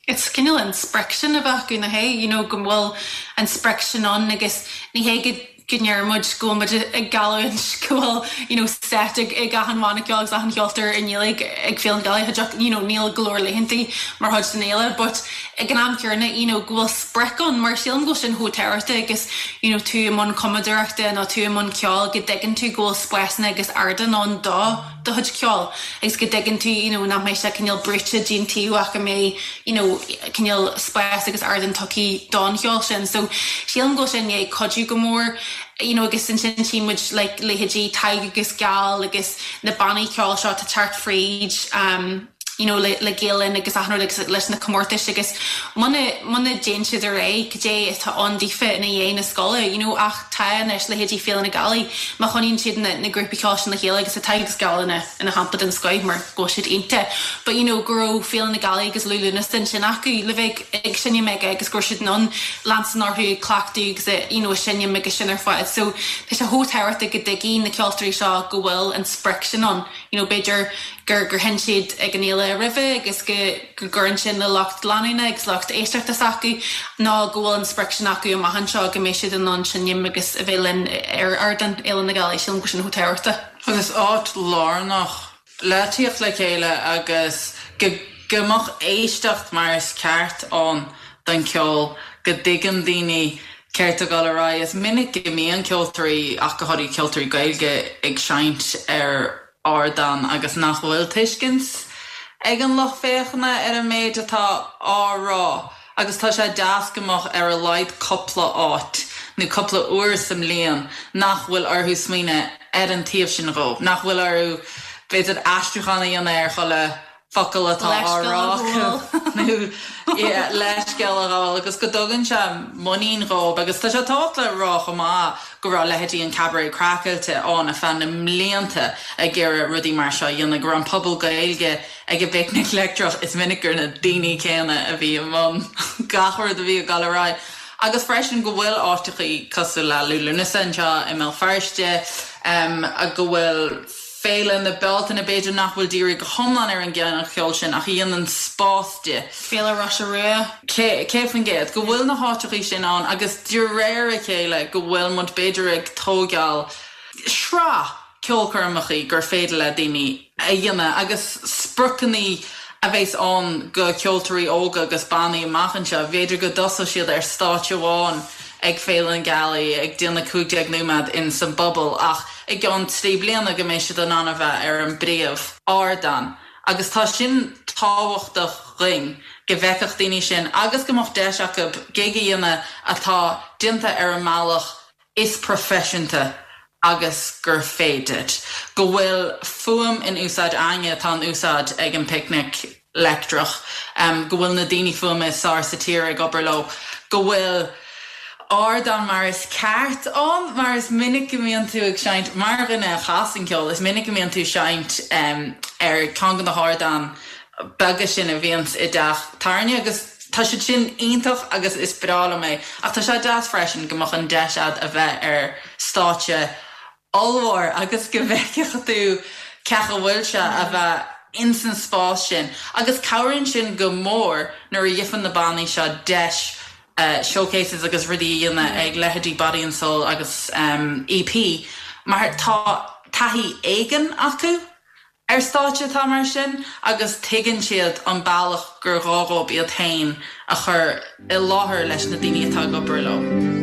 O: It's cineál an sprioc sin a bheith acu, nach é? You know, go bhfuil an sprioc sin ann agus ní hé go go ndeir muid go bhfuil muid ag geallúint go bhfuil you know set ag ag achan bhanna ceoil agus achan cheoltóir i nGaeilge ag Féile na Gealaí, cha dtiocfadh, you know, níl go leor laethantaí mar chuid den fhéile but ag an am céanna you know go bhfuil sprioc ann mar sílim go bhfuil sin chomh tábhachtach agus you know tú i mbun cumadóireachta nó tú i mbun ceoil go dtuigeann tú go bhfuil spásanna agus ardáin ann do do chuid ceoil agus go dtuigeann tú you know nach mbeidh sé cineál brúite dtí'n taobh ach go mbeidh you know cineál spás agus ardán tugtha don cheol sin. So sílim go bhfuil sé i ndiaidh cuidiú go mór you know agus ansin tchí muid like leithéidí Tadhg agus Geal agus na bannaí ceoil seo atá ag teacht fríd um you know le le Gael Linn agus achan rud agus leis na comórtais agus muna muna dtéann siad ar aghaidh cad é atá ann daofa ina dhiaidh na scoile you know ach tá anois leithéidí Féile na Gealaí má choinníonn siad na na grúpaí ceoil sin le chéile agus tá Tadhg agus Geal ina ina shampla den scoith mar go bhfuil siad iontach but you know go raibh Féile na Gealaí agus Liú Lúnasa ansin acu le bheith ag ag seinm aige agus go raibh siad in ann leanstan orthu ag cleachtadh agus a you know ag seinm agus sin ar fad so tá sé chomh tábhachtach go dtuigfidh na ceoltóirí seo go bhfuil an sprioc sin ann you know b'fhéidir gur gur sheinn siad ag an fhéile roimhe agus go go gcuireann sin le lucht leanúna agus lucht éisteachta s'acu nó go bhfuil an sprioc sin acu amach anseo go mbeidh siad in ann seinm agus a bheith linn ar ardán Fhéile na Gealaí, sílim go bhfuil sin chomh tábhachtach.
N: Agus áit lárnach le tíocht le chéile agus go go mbeadh éisteacht mar is ceart ann don cheol, go dtuigeann daoine céard tá ag dul ar aghaidh. Is minic go mbíonn ceoltóirí, ach go háirithe ceoltóirí Gaeilge, ag seinnt ar ardán agus nach bhfuil tuiscint. ag an lucht féachana ar an méid atá á rá agus tá sé deas go mbeadh ar a laghad cupla áit nó cupla uair sa mbliain nach bhfuil orthu smaoineamh ar an taobh sin dhó, nach bhfuil orthu b'fhéidir aistriúchán a dhéanamh ar chuile focal atá á rá acu nó leithscéal a ghabháil agus go dtugann sé muinín dhóibh agus tá sé tábhachtach le rá chomh maith go raibh leithéidí an Cabaret Craiceáilte ann ar feadh na mblianta ag iarraidh rudaí mar seo a dhéanamh, go raibh an Puball Gaeilge ag an bPicnic Leictreach, is minic gur na daoine céanna a bhí i mbun gach rud a bhí ag dul ar aghaidh agus freisin go bhfuil áiteachaí cosúil le Liú Lúnasa anseo i mBéal Feirste, go bhfuil. Féile na Bealtaine, b'fhéidir nach bhfuil dírithe go hiomlán ar an gcineál ceoil sin ach a dhéanann spás di. Féile Roise Rua. 100%, go bhfuil na háiteachaí sin ann agus de réir a chéile go bhfuil muid b'fhéidir ag tógáil sraith ceolchoirmeachaí gur féidir le daoine a dhéanamh agus spriocannaí a bheas ann go ceoltóirí óga agus bannaí amach anseo, b'fhéidir go dtosóidh siad ar stáitse amháin ag Féile na Gealaí ag déanamh 15 nóiméad in san bpuball ach i gceann 3 bliana go mbeidh siad in ann a bheith ar an bpríomh ardán agus tá sin tábhachtach dhuinn go bhfeicfeadh daoine sin agus go mbeadh deis acu gig a dhéanamh atá déanta ar an mbealach is proifisiúnta agus gur féidir. Go bhfuil fuaim in úsáid againne atá in úsáid ag an bPicnic Leictreach, go bhfuil na daoine fuaime is fearr sa tír ag obair leo, go bhfuil ardán mar is ceart ann, mar is minic go mbíonn tú ag seinnt, mar dhuine a chasann ceol, is minic go mbíonn tú ag seinnt ar ceann de na hardáin beaga sin a bhíonns i dteach tábhairne agus tá siad sin iontach agus is breá liom é ach tá sé deas freisin go mbeadh an deis a'd a bheith ar stáitse ollmhór agus go bhfeicfeadh tú cén chaoi a bhfuil sé a bheith ins an spás sin agus cabhraíonn sin go mór nuair a gheibheann na bannaí seo deis showcases agus rudaí a dhéanamh ag leithéidí Body and Soul agus EP mar tá taithí éigin acu ar stáitse atá mar sin agus tuigeann siad an bealach gur gá dhóibh iad féin a chur i láthair leis na daoine atá ag obair leo.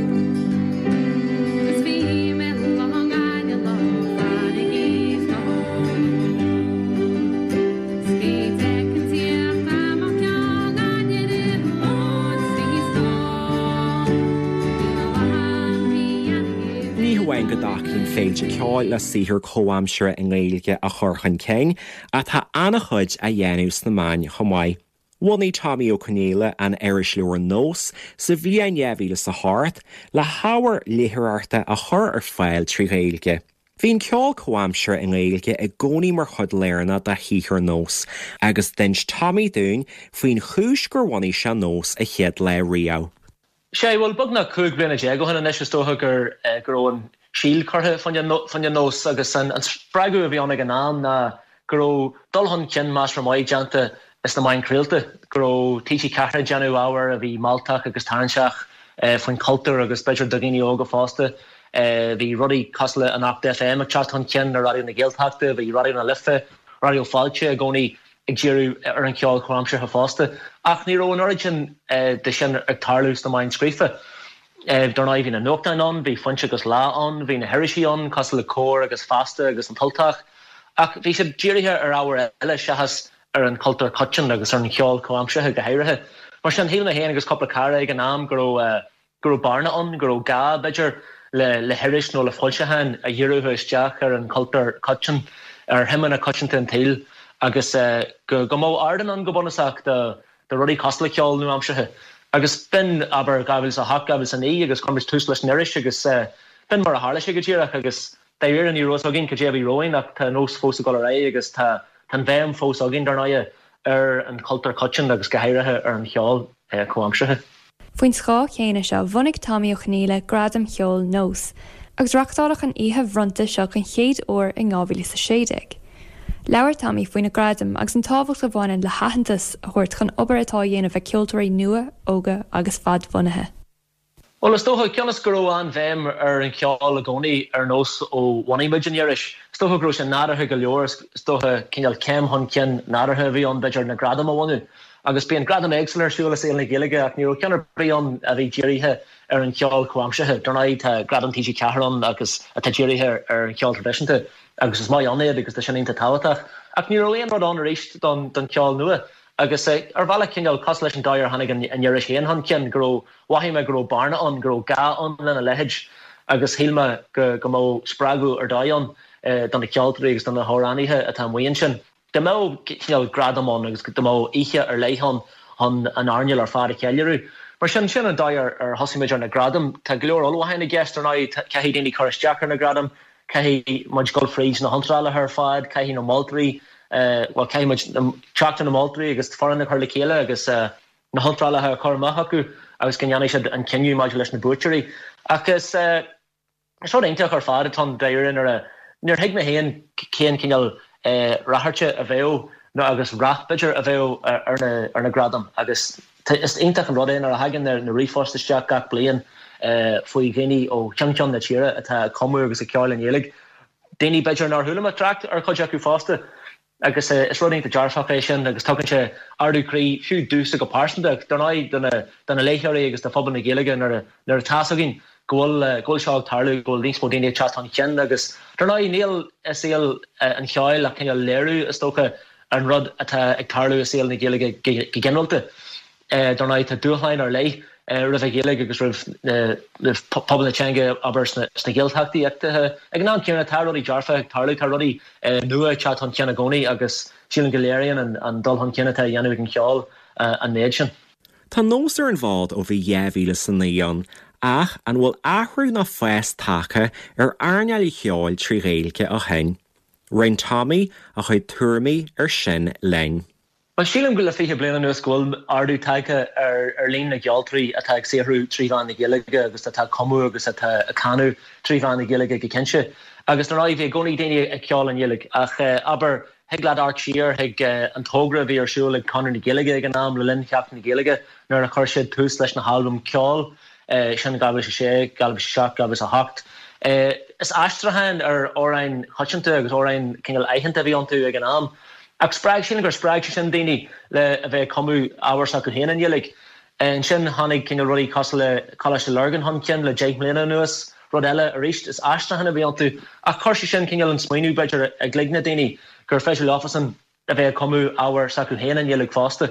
E: Ní hamháin go dtacaíonn féilte ceoil le saothar comhaimseartha i nGaeilge a chur chun cinn, ach tá an-chuid á dhéanamh sna meáin chomh maith. Bhunaigh Tommy Ó Conghaile an irisleabhar Nós sa bhliain 2008 le hábhar léitheoireachta a chur ar fáil trí Ghaeilge. Bhí an ceol comhaimseartha i nGaeilge i gcónaí mar chuid lárnach de shaothar Nós agus d'inis Tommy dúinn faoin chúis gur bhunaigh sé Nós a chéad lá riamh.
P: Sea, bhuel, beagnach 15 bliana ó shin anois is dócha gur go raibh an síol curtha fá choinne Nós agus an spreagadh a bhí ann ag an am ná go raibh dul chun cinn measartha maith déanta sna meáin chraolta, go raibh TG4 ag déanamh ábhar a bhí mealltach agus tarraingteach faoin chultúr agus b'fhéidir do dhaoine óga fosta. Bhí rudaí cosúil le Anocht FM ag teacht chun cinn ar Raidió na Gaeltachta, bhí Raidió na Life, Raidió Fáilte i gcónaí ag díriú ar an cheol comhaimseartha fosta. Ach ní raibh an oiread sin de sin ag tarlú sna meáin scríofa. Dar ndóigh bhí na nuachtáin ann, bhí Foinse agus Lá ann, bhí na hirisí ann cosúil le Comhar agus Feasta agus An tUltach, ach bhí siad dírithe ar ábhair eile seachas ar an chultúr coiteann agus ar an cheol comhaimseartha go háirithe. Mar sin, shíl mé féin agus cúpla cara ag an am go raibh go raibh bearna ann, go raibh gá, b'fhéidir, le le hiris nó le foilseachán a dhíreodh isteach ar an chultúr coiteann, ar shuimeanna coitianta an tsaoil agus go go mbeadh ardán ann go bunúsach do do rudaí cosúil le ceol nua-aimseartha. Agus b'in, abair, 2008, 2009 agus chuir muid tús leis an iris agus b'in mar a tharla sé go díreach agus dáiríre ní raibh fhios againn cad é a bhí romhainn ach tá Nós fós ag dul ar aghaidh agus tá tá an bhéim fós againn, dar ndóighe, ar an chultúr coiteann agus go háirithe ar an cheol comhaimseartha.
D: Faoin scáth chéanna seo, bhunaigh Tommy Ó Conghaile Gradaim Cheoil Nós, agus reachtáladh an oíche bhronnta seo den chéad uair in 2016. Labhair Tommy faoi na gradaim agus an tábhacht a bhaineann le haitheantas a thabhairt chun obair atá á dhéanamh ag ceoltóirí nua, óga agus fadbhunaithe.
P: Bhuel, is dócha, cionn is go raibh an-bhéim ar an cheol i gcónaí ar Nós ó bhunaigh muid an iris, is dócha go raibh sé nádúrtha go leor, is dócha, cineál céim chun cinn nádúrtha a bhí ann, b'fhéidir, na gradaim a bhunú. Agus bíonn gradaim éagsúla ar siúl i saol na Gaeilge ach ní raibh ceann ar bith ann a bhí dírithe ar an cheol comhaimseartha. Dar ndóigh, tá Gradam TG4 ann agus atá dírithe ar an cheol traidisiúnta agus is maith ann iad agus tá sin iontach tábhachtach. Ach ní raibh aon rud ann arís don cheol nua. Agus ar bhealach cineál cosúil leis an dóigh ar tháinig an iris féin chun cinn, go raibh, mhothaigh mé go raibh bearna ann, go raibh gá ann lena leithéid agus shíl mé go go mbeadh spreagadh ar dóigh ann do na ceoltóirí agus do na hamhránaithe atá amuigh ansin. Dá mbeadh cineál gradam ann agus dá mbeadh oíche ar leith ann chun an earnáil ar fad a cheiliúradh. Mar sin, sin an dóigh ar thosaigh muid ar na gradaim. Tá go leor ullmhúcháin i gceist, ar ndóigh, caithfidh daoine cur isteach ar na gradaim, Caithfidh muid dul fríd na hiontrálacha ar fad, caithfidh na moltóirí, bhuel, caithfidh muid teacht ar na moltóirí agus foireann a chur le chéile agus na hiontrálacha a chur amach chucu agus go ndéanfaidh siad an cinneadh maidir leis na buaiteoirí. Ach is rud iontach ar fad atá ann dáiríre nuair a, níor thuig mé féin cén cineál ráchairte a bheadh nó agus rath b'fhéidir a bheadh ar na gradaim agus Is iontach an rud é nuair a thagann na ríomhphoist isteach gach bliain faoi dhaoine ó cheann ceann na tíre atá ag cumadh agus ag ceol i nGaeilge. Daoine b'fhéidir nár chuala mé trácht ar chuid acu fosta. Agus is rud iontach dearfach é sin agus tugann sé ardú croí, fiú domhsa go pearsanta ach dar ndóigh do na léitheoirí agus do phobal na Gaeilge nuair nuair atá fhios againn go bhfuil go bhfuil seo ag tarlú, go bhfuil níos mó daoine ag teacht chun cinn agus dar ndóigh níl i saol an cheoil ach cineál léiriú is dócha an rud atá ag tarlú i saol na Gaeilge go ginearálta. Dar ndóigh, tá dúshláin ar leith roimh an Ghaeilge agus roimh phobal na teanga, abair, sna Gaeltachtaí ach ag an am céanna, tá rudaí dearfacha ag tarlú, tá rudaí nua ag teacht chun cinn i gcónaí agus sílim go léiríonn an dul chun cinn atá á dhéanamh ag an cheol an méid sin.
E: Tá nós ar an bhfód ó bhí 2009 ann, ach an bhfuil athrú ná fás tagtha ar earnáil an cheoil trí Ghaeilge ó shin? Roinn Tommy a chuid tuairimí ar sin linn.
P: Bhuel, sílim go le 20 bliain anuas go bhfuil ardú tagtha ar líon na gceoltóirí atá ag saothrú trí mheán na Gaeilge agus atá ag cumadh agus atá ag canadh trí mheán na Gaeilge go cinnte. Agus dar ndóigh, bhí i gcónaí daoine ag ceol i nGaeilge ach, abair, thig leat amharc siar chuig an togra a bhí ar siúl ag Conradh na Gaeilge ag an am le linn Sheachtain na Gaeilge nuair a chuir siad tús leis na halbaim ceoil. Sin 2006, 2007, 2008. Is aistriúcháin ar amhráin choitianta agus amhráin cineál aitheanta a bhí iontu ag an am. Ach spreag, sílim gur spreag sé sin daoine le a bheith ag cumadh ábhar s'acu féin i nGaeilge. Ansin tháinig cineál rudaí cosúil le Coláiste Lurgan chun cinn le 10 mbliana anuas. Rud eile arís, is aistriúcháin a bhí iontu. Ach chuir sé sin cineál an smaoineamh b'fhéidir i gcloigne daoine gur féidir leofasan a bheith ag cumadh ábhar s'acu féin i nGaeilge fosta.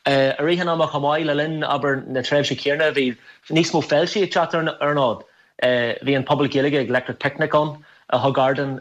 P: I rith an ama chomh maith, le linn, abair, na tréimhse céanna, bhí níos mó féiltí ag teacht ar an fhód. Bhí an Puball Gaeilge ag Electric Picnic ann a thug ardán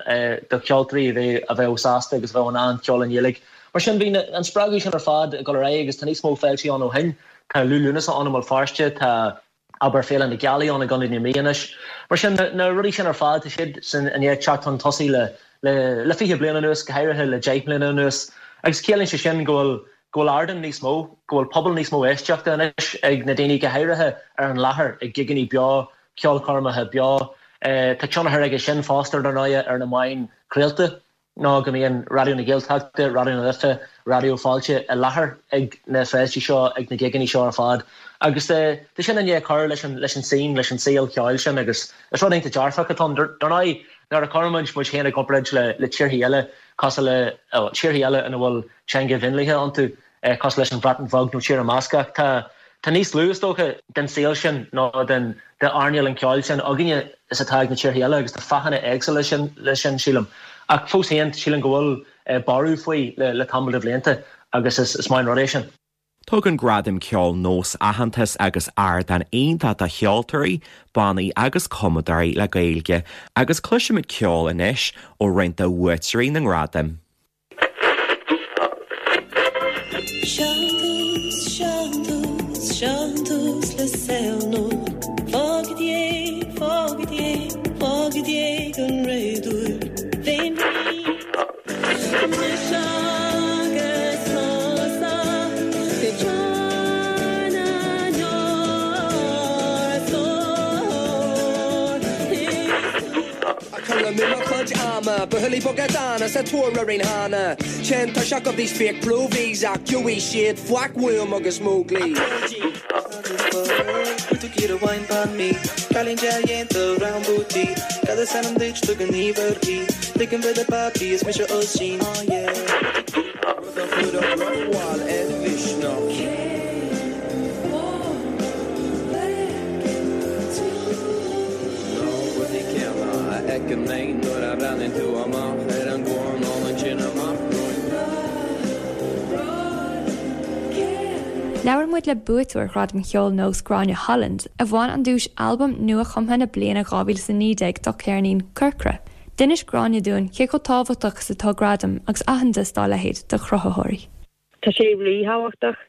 P: do cheoltóirí a bheadh sásta agus a bheadh in ann ceol i nGaeilge. Mar sin, bhí an spreagadh sin ar fad ag dul ar aghaidh agus tá níos mó féiltí ann ó shin. Tá Liú Lúnasa ann i mBéal Feirste, tá. abair, Féile na Gealaí ann i gContae na Mí anois. Mar sin, na rudaí sin ar fad, tá siad sin i ndiaidh teacht chun tosaigh le le 20 bliain anuas, go háirithe le 10 mbliana anuas. Agus ciallaíonn sé sin go bhfuil go bhfuil ardán níos mó, go bhfuil pobal níos mó éisteachta anois ag na daoine, go háirithe ar an láthair, ag gigeanna beo, ceolchoirmeacha beo. Tá tionchar aige sin fosta, ar ndóigh, ar na meáin chraolta. ná go mbíonn Raidió na Gaeltachta, Raidió na Life, Raidió Fáilte i láthair ag na féiltí seo, ag na gigeanna seo ar fad. Agus tá sin i ndiaidh cur leis an leis an scene, leis an saol ceoil sin agus is rud iontach dearfach atá ann. Dar ndóigh, nuair a chuireann muid muid féin i gcomparáid le le tíorthaí eile cosúil le, tíorthaí eile ina bhfuil teanga mhionlaithe iontu, cosúil leis an Bhreatain Bheag nó Tír na mBascach. Tá tá níos lú, is dócha, den saol sin nó den d'earnáil an cheoil sin againne is atá ag na tíortha eile agus tá fáthanna éagsúla sin leis sin, sílim. Ach fós féin, sílim go bhfuil borradh faoi le le tamall de bhlianta agus is is maith an rud é sin.
E: Tugann Gradaim Ceoil Nós aitheantas agus ardán iontach do cheoltóirí, bannaí agus cumadóirí le Gaeilge agus cloisfimid ceol anois ó roinnt de bhuaiteoirí na ngradam.
Q: Ag cur amú mo chuid ama, buachaillí beaga dána sa tóir orainn cheana. Téann tuirseach of these fake provies ach gheobhaidh siad faic uaim agus Móglaí.
F: Na rudaí céanna a fheiceann mé nuair a bhreathnaíonn tú amach ar an gcoirnéal ansin amach romhainn.
D: Labhair muid le buaiteoir Ghradam Cheoil Nós Gráinne Holland, a bhain an duais Albam Nua-Chumtha na Bliana 2019 dá ceirnín Corcra. D'inis Gráinne dúinn cé chomh tábhachtach is atá gradaim agus aitheantas dá leithéid do chruthaitheoirí.
R: Tá sé ríthábhachtach.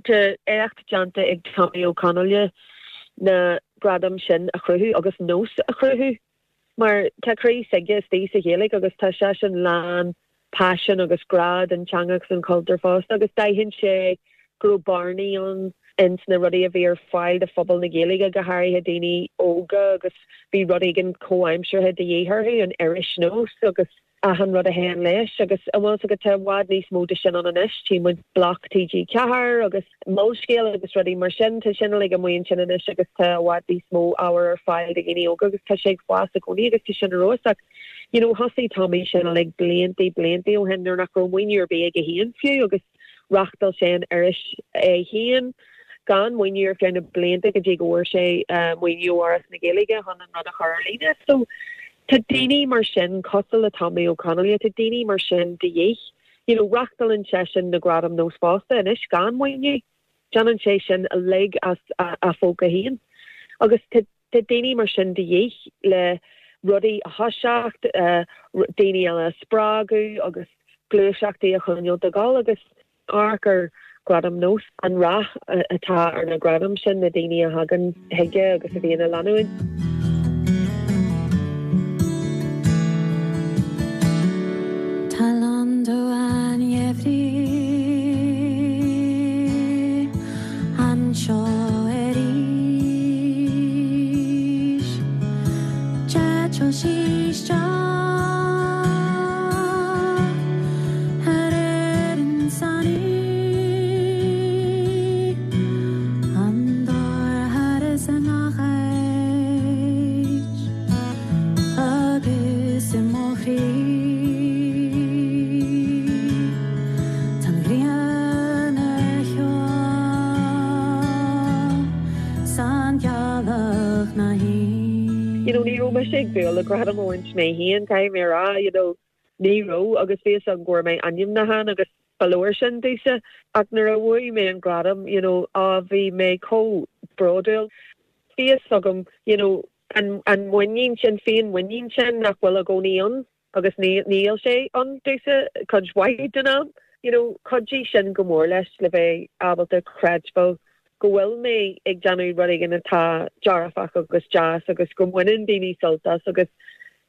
R: Tá éacht déanta ag Tommy Ó Conghaile na gradaim sin a chruthú agus nós a chruthú mar tá croí s'aige istigh sa Ghaeilge agus tá seisean lán paisean agus grá don teanga agus don chultúr fosta agus d'aithin sé go raibh bearnaí ann ins na rudaí a bhí ar fáil do phobal na Gaeilge, go háirithe daoine óga agus bhí rud éigin comhaimseartha de dhíth orthu, an iris Nós agus achan rud a théann leis agus an bhfuil 's agat tá i bhfad níos mó de sin ann anois, tchí muid Bloc TG4 agus Molscéal agus rudaí mar sin, tá sin uilig amuigh ansin anois agus tá i bhfad níos mó ábhar ar fáil do dhaoine óga agus tá sé ag fás i gcónaí agus tá sin ar fheabhas ach you know thosaigh Tommy sin uilig bliantaí bliantaí ó shin nuair nach raibh maoiniú ar bith aige féin fiú agus reachtáil sé an iris é féin gan maoiniú ar feadh na blianta go dtí go bhfuair sé maoiniú ó Fhoras na Gaeilge chun an rud a chur ar líne. So tá daoine mar sin cosúil le Tommy Ó Conghaile, tá daoine mar sin de dhíth. You know, reachtálann seisean na Gradaim Nós fosta anois gan maoiniú. Déanann sé sin uilig as a phóca féin. Agus tá tá daoine mar sin de dhíth le rudaí a thoiseacht, daoine eile a spreagadh agus gluaiseachtaí a choinneáil ag dul agus amharc ar Ghradaim Nós, an rath atá ar na gradaim sin, na daoine a thagann chuige agus a bhíonn á leanúint.
G: Tá lán an gheimhridh anseo arís. D'eitil sí isteach ar Éirinn san oíche, an t-oirthear is i ngach áit agus i mo chroí. Tá an ghrian ar shiúl 's an ghealach 'na shuí.
R: You know, ní raibh mise ag dúil le gradam a bhaint mé féin, caithfidh mé a rá, you know, ní raibh agus bhí fhios agam go bhfuair mé ainmniúchán agus ba leor sin domhsa. Ach nuair a bhuaigh mé an gradam, you know, á bhí mé chomh bródúil. Bhí fhios agam, you know, an, an muinín sin, féinmhuinín sin nach bhfuil i gcónaí ann agus níl sé ann domhsa cuid mhaith den am. You know, chuidigh sin go mór leis le bheith ábalta creidbheáil go bhfuil mé ag déanamh rud éigin atá dearfach agus deas agus go mbaineann daoine sult as agus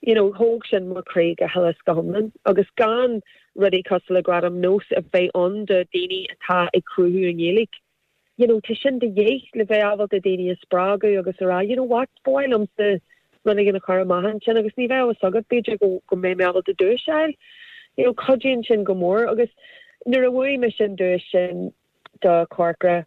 R: you know, thóg sin mo chroí go huile is go hiomlán. Agus gan rudaí cosúil le Gradaim Nós a bheith ann do daoine atá ag cruthú i nGaeilge, you know, tá sin de dhíth le bheith ábalta daoine a spreagadh agus a rá, you know what, ba mhaith liomsa rud éigin a chur amach ansin agus ní bheadh a fhios agat, b'fhéidir go, go mbeidh mé ábalta duais a fháil. You know, cuidíonn sin go mór agus nuair a bhuaigh mise an duais sin do Corcra,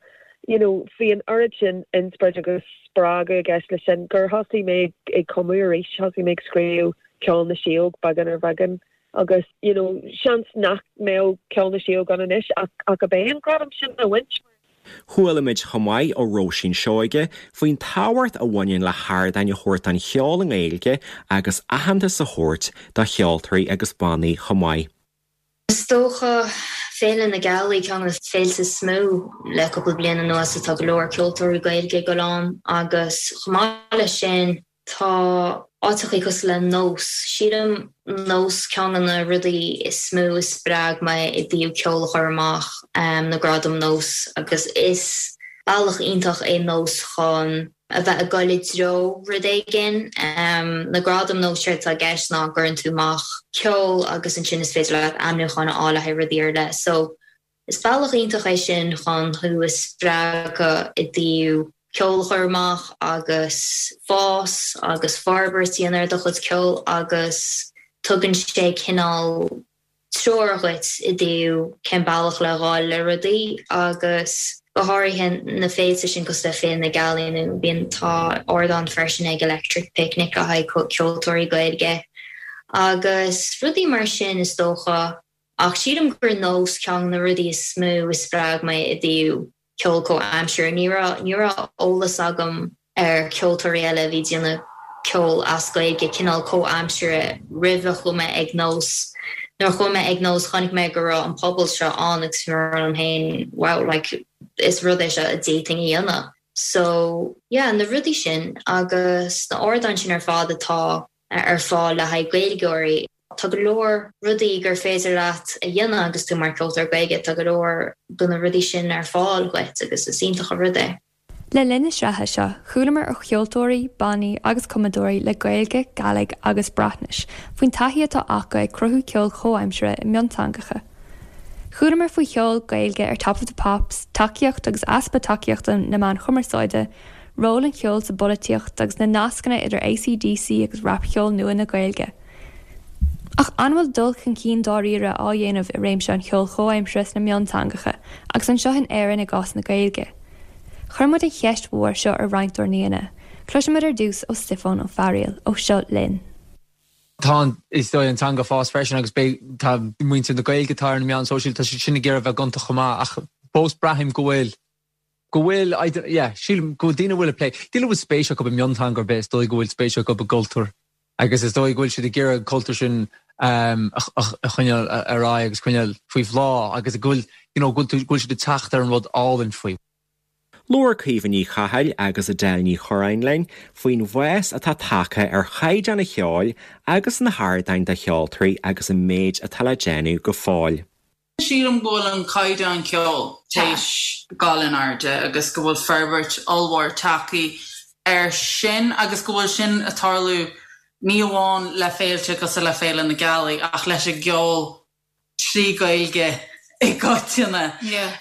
R: you know, bhí an oiread sin inspioráid agus spreagadh i gceist leis sin gur thosaigh mé ag cumadh arís, thosaigh mé ag scríobh Ceol na Síóg beagán ar bheagán Agus, you know, seans nach mbeadh Ceol na Síóg ann anois ach ach ab é an gradam sin a bhaint.
E: Chuala muid chomh maith ó Róisín Seoige faoin tábhacht a bhaineann le hardáin a thabhairt don cheol i nGaeilge agus aitheantas a thabhairt do cheoltóirí agus bannaí chomh maith.
S: Is dócha Féile na Gealaí ceann de na féilte is mó le cúpla bliain anuas atá go leor ceoltóirí Gaeilge ag dul ann agus chomh maith leis sin Tá áiteachaí cosúil le Nós. Sílim Nós ceann de na rudaí is mó a spreag mé i dtaobh ceol a chur amach, na Gradaim Nós agus is bealach iontach é Nós chun a bheith ag dul i dtreo rud éigin. Na Gradaim Nós séard atá i gceist ná go gcuireann tú amach ceol agus ansin is féidir leat ainmniúcháin a fháil le haghaidh rudaí ar leith. So Is bealach iontach é sin chun thú a spreagadh i dtaobh ceol a chur amach agus fás agus forbairt a dhéanamh ar do chuid ceoil agus tugann sé cineál treoir dhuit i dtaobh cén bealach le ghabháil le rudaí agus go háirithe na féilte sin cosúil le Féile na Gealaí nó bíonn tá ardán freisin ag Electric Picnic le haghaidh ceoltóirí Gaeilge agus rudaí mar sin is dócha. Ach sílim gur Nós ceann de na rudaí is mó a spreag mé i dtaobh ceol comhaimseartha. Ní raibh, ní raibh eolas agam ar ceoltóirí eile a bhí ag déanamh ceol as Gaeilge, cineál comhaimseartha, roimh a chuaigh mé ag Nós. Nuair a chuaigh mé ag Nós chonaic mé go raibh an pobal seo ann agus bhí mé ag rá liom féin wow, like. Is rud é seo a d'fhéadfainn a dhéanamh. So, yeah, na rudaí sin agus na ardáin sin ar fad atá ar fáil le haghaidh Gaeilgeoirí. Tá go leor rudaí gur féidir leat a dhéanamh agus tú mar cheoltóir Gaeilge, tá go leor de na rudaí sin ar fáil dhuit agus is iontach an rud é.
D: Le linn na sraithe seo, chualamar ó cheoltóirí, bannaí agus cumadóirí le Gaeilge, Gàidhlig agus Breatnais faoin taithí atá acu ag cruthú ceoil chomhaimseartha i mionteangacha. Chualamar faoi cheol Gaeilge ar Top of the Pops, tacaíocht agus easpa tacaíochta na meán chumarsáide, ról an cheoil sa bpolaitíocht agus na nascanna idir AC/DC agus rapcheol nua na Gaeilge. Ach an bhfuil dul chun cinn dáiríre á dhéanamh i réimse an cheoil chomhaimseartha sna mionteangacha agus anseo in Éirinn i gcás na Gaeilge? Chuir muid an cheist mhór seo ar roinnt dár n-aíonna. Cloisfimid ar dtús ó Stiofán Ó Fearaíl ó Seo Linn.
T: Tá an, is dóigh, an teanga ag fás freisin agus beidh, tá muintir na Gaeilge atá ar na meáin sóisialta, tá siad sin ag iarraidh a bheith gonta chomh maith ach fós braithim go bhfuil, go bhfuil, I don't, yeah, sílim go bhfuil daoine a bhfuil ag plé, daoine a bhfuil spéis acu i mionteanga ar bith, is dóigh go bhfuil spéis acu i gcultúr agus is dóigh go bhfuil siad ag iarraidh an cultúr sin a choinneáil ar aghaidh agus coinneáil faoi bhláth agus go bhfuil, you know, go bhfuil siad ag teacht ar an rud álainn faoi.
E: Labhair Caoimhe Ní Chathail agus Edel Ní Churráin linn faoin bhfás atá tagtha ar chaighdeán an cheoil agus na hardáin do cheoltóirí agus an méid atá le déanamh go fóill.
N: Sílim go bhfuil an caighdeán ceoil théis dul in airde agus go bhfuil forbairt ollmhór tagtha air sin agus go bhfuil sin ag tarlú ní amháin le féilte cosúil le Féile na Gealaí ach leis an gceol trí Ghaeilge i gcoitinne.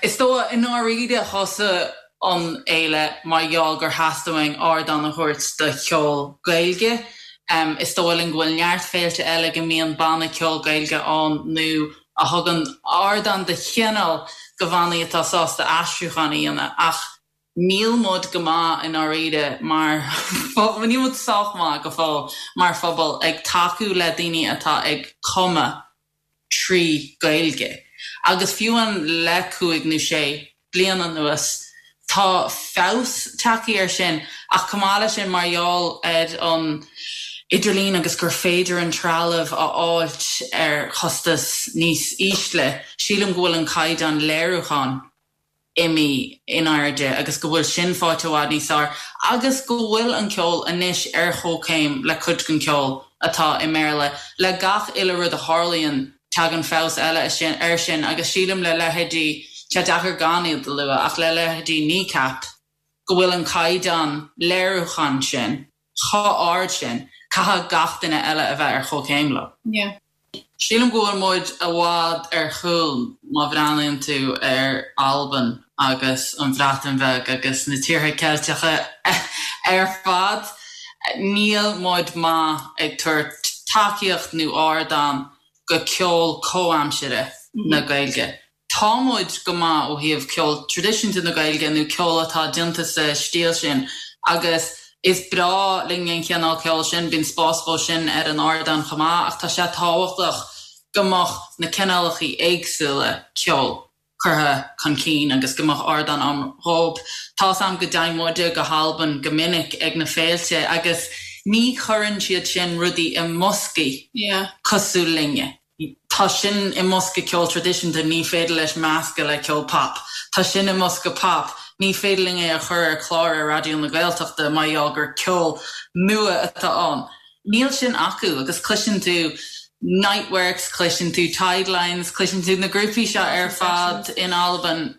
N: Is dóigh i ndáiríre thosaigh an fhéile mar gheall gur theastaigh uainn ardán a thabhairt do cheol Gaeilge. Is dóigh linn go bhfuil neart féilte eile go mbíonn banna ceoil Gaeilge ann nó a thugann ardán de chineál do bhannaí atá sásta aistriúchán a dhéanamh ach níl muid go maith i ndáiríre mar phobal, níl muid sách maith go fóill mar phobal ag tacú le daoine atá ag cumadh trí Ghaeilge agus fiú amháin le cúig nó sé bliain anuas. Tá feabhas tagtha air sin ach chomh maith leis sin mar gheall ar an idirlíon agus gur féidir an trealamh a fháilt ar chostas níos ísle, sílim go bhfuil an caighdeán léiriúcháin imithe in airde agus go bhfuil sin faighte i bhfad níos fearr agus go bhfuil an ceol anois ar chomhchéim le cuid den cheol atá i mBéarla. Le gach uile rud a tharlaíonn tagann feabhas eile air sin agus sílim le leithéidí, tá sé deacair gan iad a lua, ach le leithéidí Kneecap, go bhfuil an caighdeán léiriúcháin sin chomh ard sin, caithfidh gach duine eile a bheith ar chomhchéim leo. Sílim go bhfuil muid i bhfad ar chúl má bhreathnaíonn tú ar Albain agus an Bhreatain Bheag agus na tíortha Ceilteacha ar fad. Níl muid maith ag tabhairt tacaíocht nó ardán go ceol comhaimseartha na Gaeilge. Tá muid go maith ó thaobh ceol traidisiúnta na Gaeilge nó ceol atá déanta sa stíl sin agus is breá linn an chineál ceoil sin, bíonn spás dhó sin ar an ardán chomh maith ach tá sé tábhachtach go mbeadh na cineálacha éagsúla ceoil curtha chun cinn agus go mbeadh ardán ann dhóibh. Tá's a'm go dtéann muide go hAlbain go minic ag na féilte agus ní chuireann siad sin rudaí i mboscaí cosúil linne. Tá sin i mbosca ceol traidisiúnta, ní féidir leis meascadh le ceol pop. Tá sin i mbosca pop, ní féidir linn é a chur ar chlár ar Raidió na Gaeltachta mar gheall gur ceol nua atá ann. Níl sin acu agus cloiseann tú Niteworks, cloiseann tú Tidelines, cloiseann tú na grúpaí seo ar fad in Albain.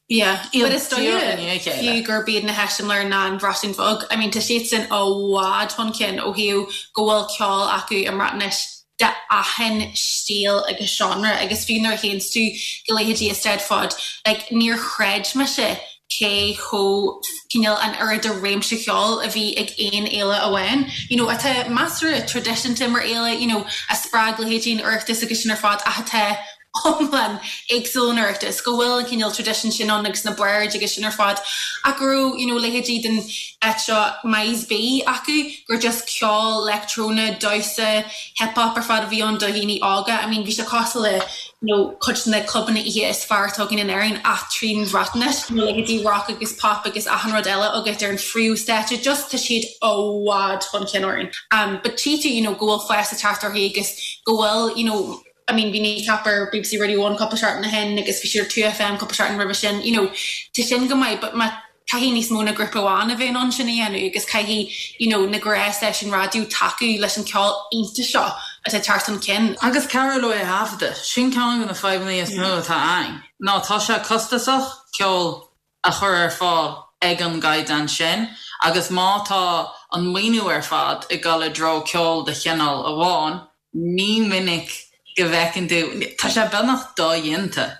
O: Yeah, but is dóigh fiú gurb iad na heiseamláir ná an Bhreatain Bheag. I mean tá siadsan i bhfad chun cinn ó thaobh go bhfuil ceol acu i mBreatnais de achan stíl agus genre agus fiú nuair a théanns tú go leithéidí Eisteddfod, like níor chreid mise cé chomh cineál an oiread de réimse cheoil a bhí ag aon fhéile amháin, you know atá measartha traidisiúnta mar fhéile, you know a spreag leithéidí an Oireachtais agus sin ar fad ach atá iomlán éagsúil ón Oireachtas, go bhfuil an cineál traidisiún sin ann agus na baird agus sin ar fad ach go raibh you know leithéidí den áit seo Maes B acu gur just ceol leictreonach, damhsa, hip hop ar fad a bhí ann do dhaoine óga. I mean bhí sé cosúil le you know cuid de na clubanna oíche is fearr atá againn in Éirinn ach trín Bhreatnais, you know leithéidí rock agus pop agus achan rud eile agat ar an phríomhstáitse just tá siad i bhfad chun cinn orainn. Um but tchí tú you know go bhfuil fás ag teacht orthu agus go bhfuil you know. I mean bhí Kneecap ar BBC Radio One cúpla seachtain ó shin agus bhí siad ar 2FM cúpla seachtain roimhe sin, you know, tá sin go maith but má caithfidh níos mó ná grúpa amháin a bheith in ann sin a dhéanamh agus caithfidh you know na gnáthstáisiúin raidió tacú leis an ceol iontach seo atá ag teacht chun cinn.
N: Agus cabhrú leo é a thaifeadadh. Sin ceann de na fadhbanna is mó atá ann, ná tá sé costasach ceol a chur ar fáil ag an gcaighdeán sin agus má tá an maoiniú ar fad ag dul i dtreo ceol de chineál amháin, ní minic go bhfeiceann tú, tá sé beagnach dodhéanta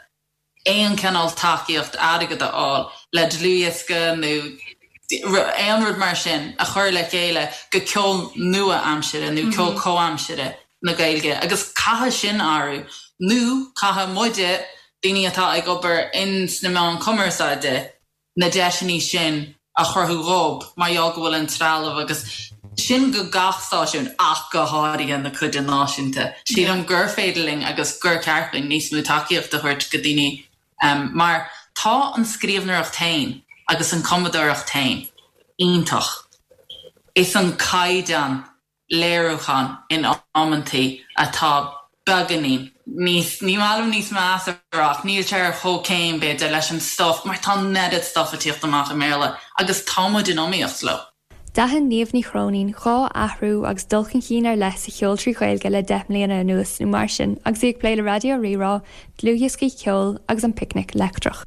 N: aon chineál tacaíocht airgid a fháil le dlúthdhiosca nó aon rud mar sin a chur le chéile go ceol nua-aimsire nó ceol comhaimsire na Gaeilge agus caithfidh sin athrú nó caithfidh muide, daoine atá ag obair in sna meáin cumarsáide, na deiseanna sin a chruthú dhób mar gheall go bhfuil an trealamh agus sin go gach stáisiún ach go háirithe na cuide náisiúnta. Sílim gur féidir linn agus gur ceart dúinn níos mó tacaíocht a thabhairt go daoine mar tá an scríbhneoireacht féin agus an cumadóireacht féin iontach. Is an caighdeán léiriúchán in amantaí atá beagáinín níos, ní maith liom níos measa a rá ach níl sé ar chomhchéim b'fhéidir leis an stuif mar tá an oiread stuif ag tíocht amach i mBéarla agus tá muid in iomaíocht leo.
D: D'aithin Niamh Ní Chróinín 2 athrú agus dul chun cinn ar leith sa cheol trí Ghaeilge le 10 mbliana anuas nó mar sin agus í ag plé le Raidió Rí-Rá, dlúthdhioscaí ceoil agus an Picnic Leictreach.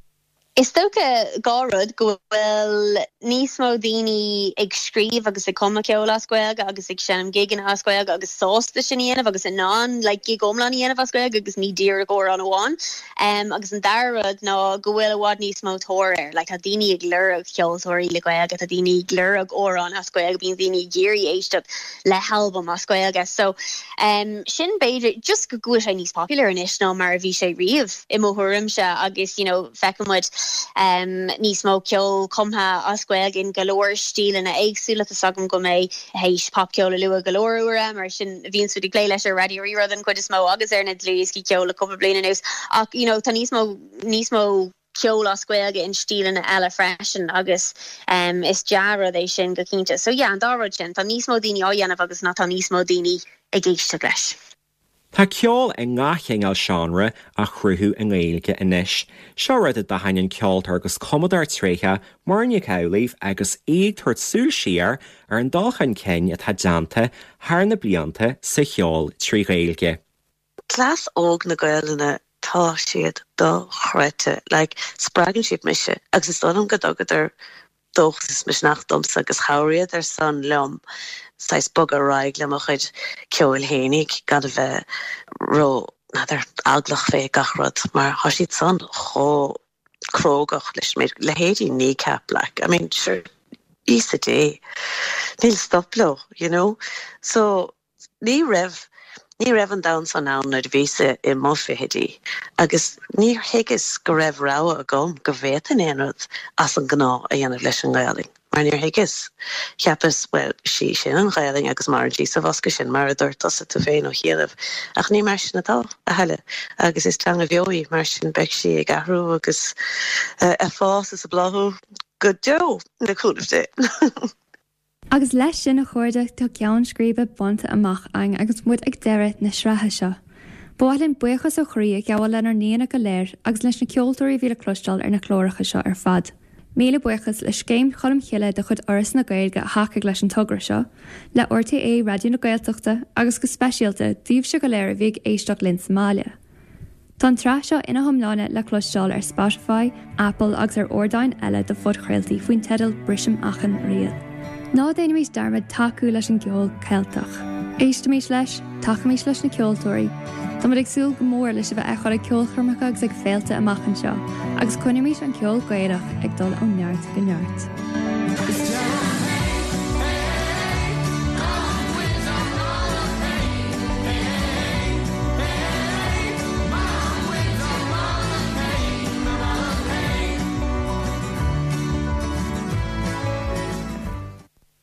M: Is dócha 2 rud, go bhfuil níos mó daoine ag scríobh agus ag cumadh ceoil as Gaeilge agus ag seinm gigeanna as Gaeilge agus sásta sin a dhéanamh agus in ann like gig iomlán a dhéanamh as Gaeilge agus ní díreach amhrán amháin. Agus an dara rud ná go bhfuil i bhfad níos mó tóir air. Like tá daoine ag lorg ceoltóirí le Gaeilge, tá daoine ag lorg amhráin as Gaeilge, bíonn daoine ag iarraidh éisteacht le halbam as Gaeilge. So sin b'fhéidir just go bhfuil sé níos popular anois ná mar a bhí sé riamh. i mo thuairimse agus you know feiceann muid níos mó ceol cumtha as Gaeilge in go leor stíleanna éagsúla. Tá's agam go mbeidh théis popcheol a lua go leor uaire mar sin bhíonn muid ag plé leis ar Raidió Rí-Rá den chuid is mó agus ar na dlúthdhioscaí ceoil le cúpla bliain anuas ach you know tá níos mó níos mó ceol as Gaeilge in stíleanna eile freisin agus is dea-rud é sin go cinnte. So yeah an dá rud sin, tá níos mó daoine á dhéanamh agus ná tá níos mó daoine ag éisteacht leis.
E: Tá ceol i ngach cineál seánra á chruthú i nGaeilge anois. Seo rud a d'aithin an ceoltóir agus cumadóir tréitheach Muireann Nic Amhlaoibh agus í ag tabhairt súil siar ar an dul chun cinn atá déanta thar na blianta sa cheol trí Ghaeilge.
U: Cleas óg na Gaelainne tá siad dochreidte. Like, spreagann siad mise agus is dóigh liom go dtugadar dóchas is misneach domsa agus chabhraíodar san liom saghas bogadh ar aghaidh le mo chuid ceoil fhéinig gan a bheith ró, n'fheadar, eaglach fé gach rud mar thá siad san chomh crógach leis an méid, leithéidí Kneecap like, I mean sure, Íosa Dé, níl stop leo, you know? So Ní raibh, ní raibh an domhan san ann nuair a bhíos-sa i mo fichidí agus níor thuigeas go raibh rogha agam go bhféadfainn aon rud as an ngnáth a dhéanamh leis an nGaelainn mar níor thuigeas. Cheapas, bhuel, sí sin an Ghaelainn agus maireann sí sa bhosca sin mar a dúirt tusa tú féin ó chianaibh ach ní mar sin atá, a thuilleadh agus is teanga bheo í mar sin beidh sí ag athrú agus ag fás is ag bláthú go deo le cúnamh Dé.
D: Agus leis sin, a chairde, tá ceann scríbe bainte amach againn agus muid ag deireadh na sraithe seo. Ba mhaith linn buíochas ó chroí a ghabháil lenár n-aíonna go léir agus leis na ceoltóirí a bhí le cloisteáil ar na cláracha seo ar fad. Míle buíochas le Scéim Cholm Chille de chuid Fhoras na Gaeilge a thacaigh leis an togra seo, le RTÉ Raidió na Gaeltachta agus go speisialta daoibhse go léir a bhí ag éisteacht linn sa mbaile. Tá an tsraith seo ina hiomláine le cloisteáil ar Spotify, Apple agus ar ardáin eile do phodchraoltaí faoin teideal Brisim Achan Riail. Ná déanaimis dearmad tacú leis an gceol Ceilteach. Éistimis leis, tacaímis leis na ceoltóirí. Táimid ag súil go mór le sibh a fheiceáil ag ceolchoirmeacha agus ag féilte amach anseo, agus coinnímis an ceol Gaelach ag dul ó neart go neart.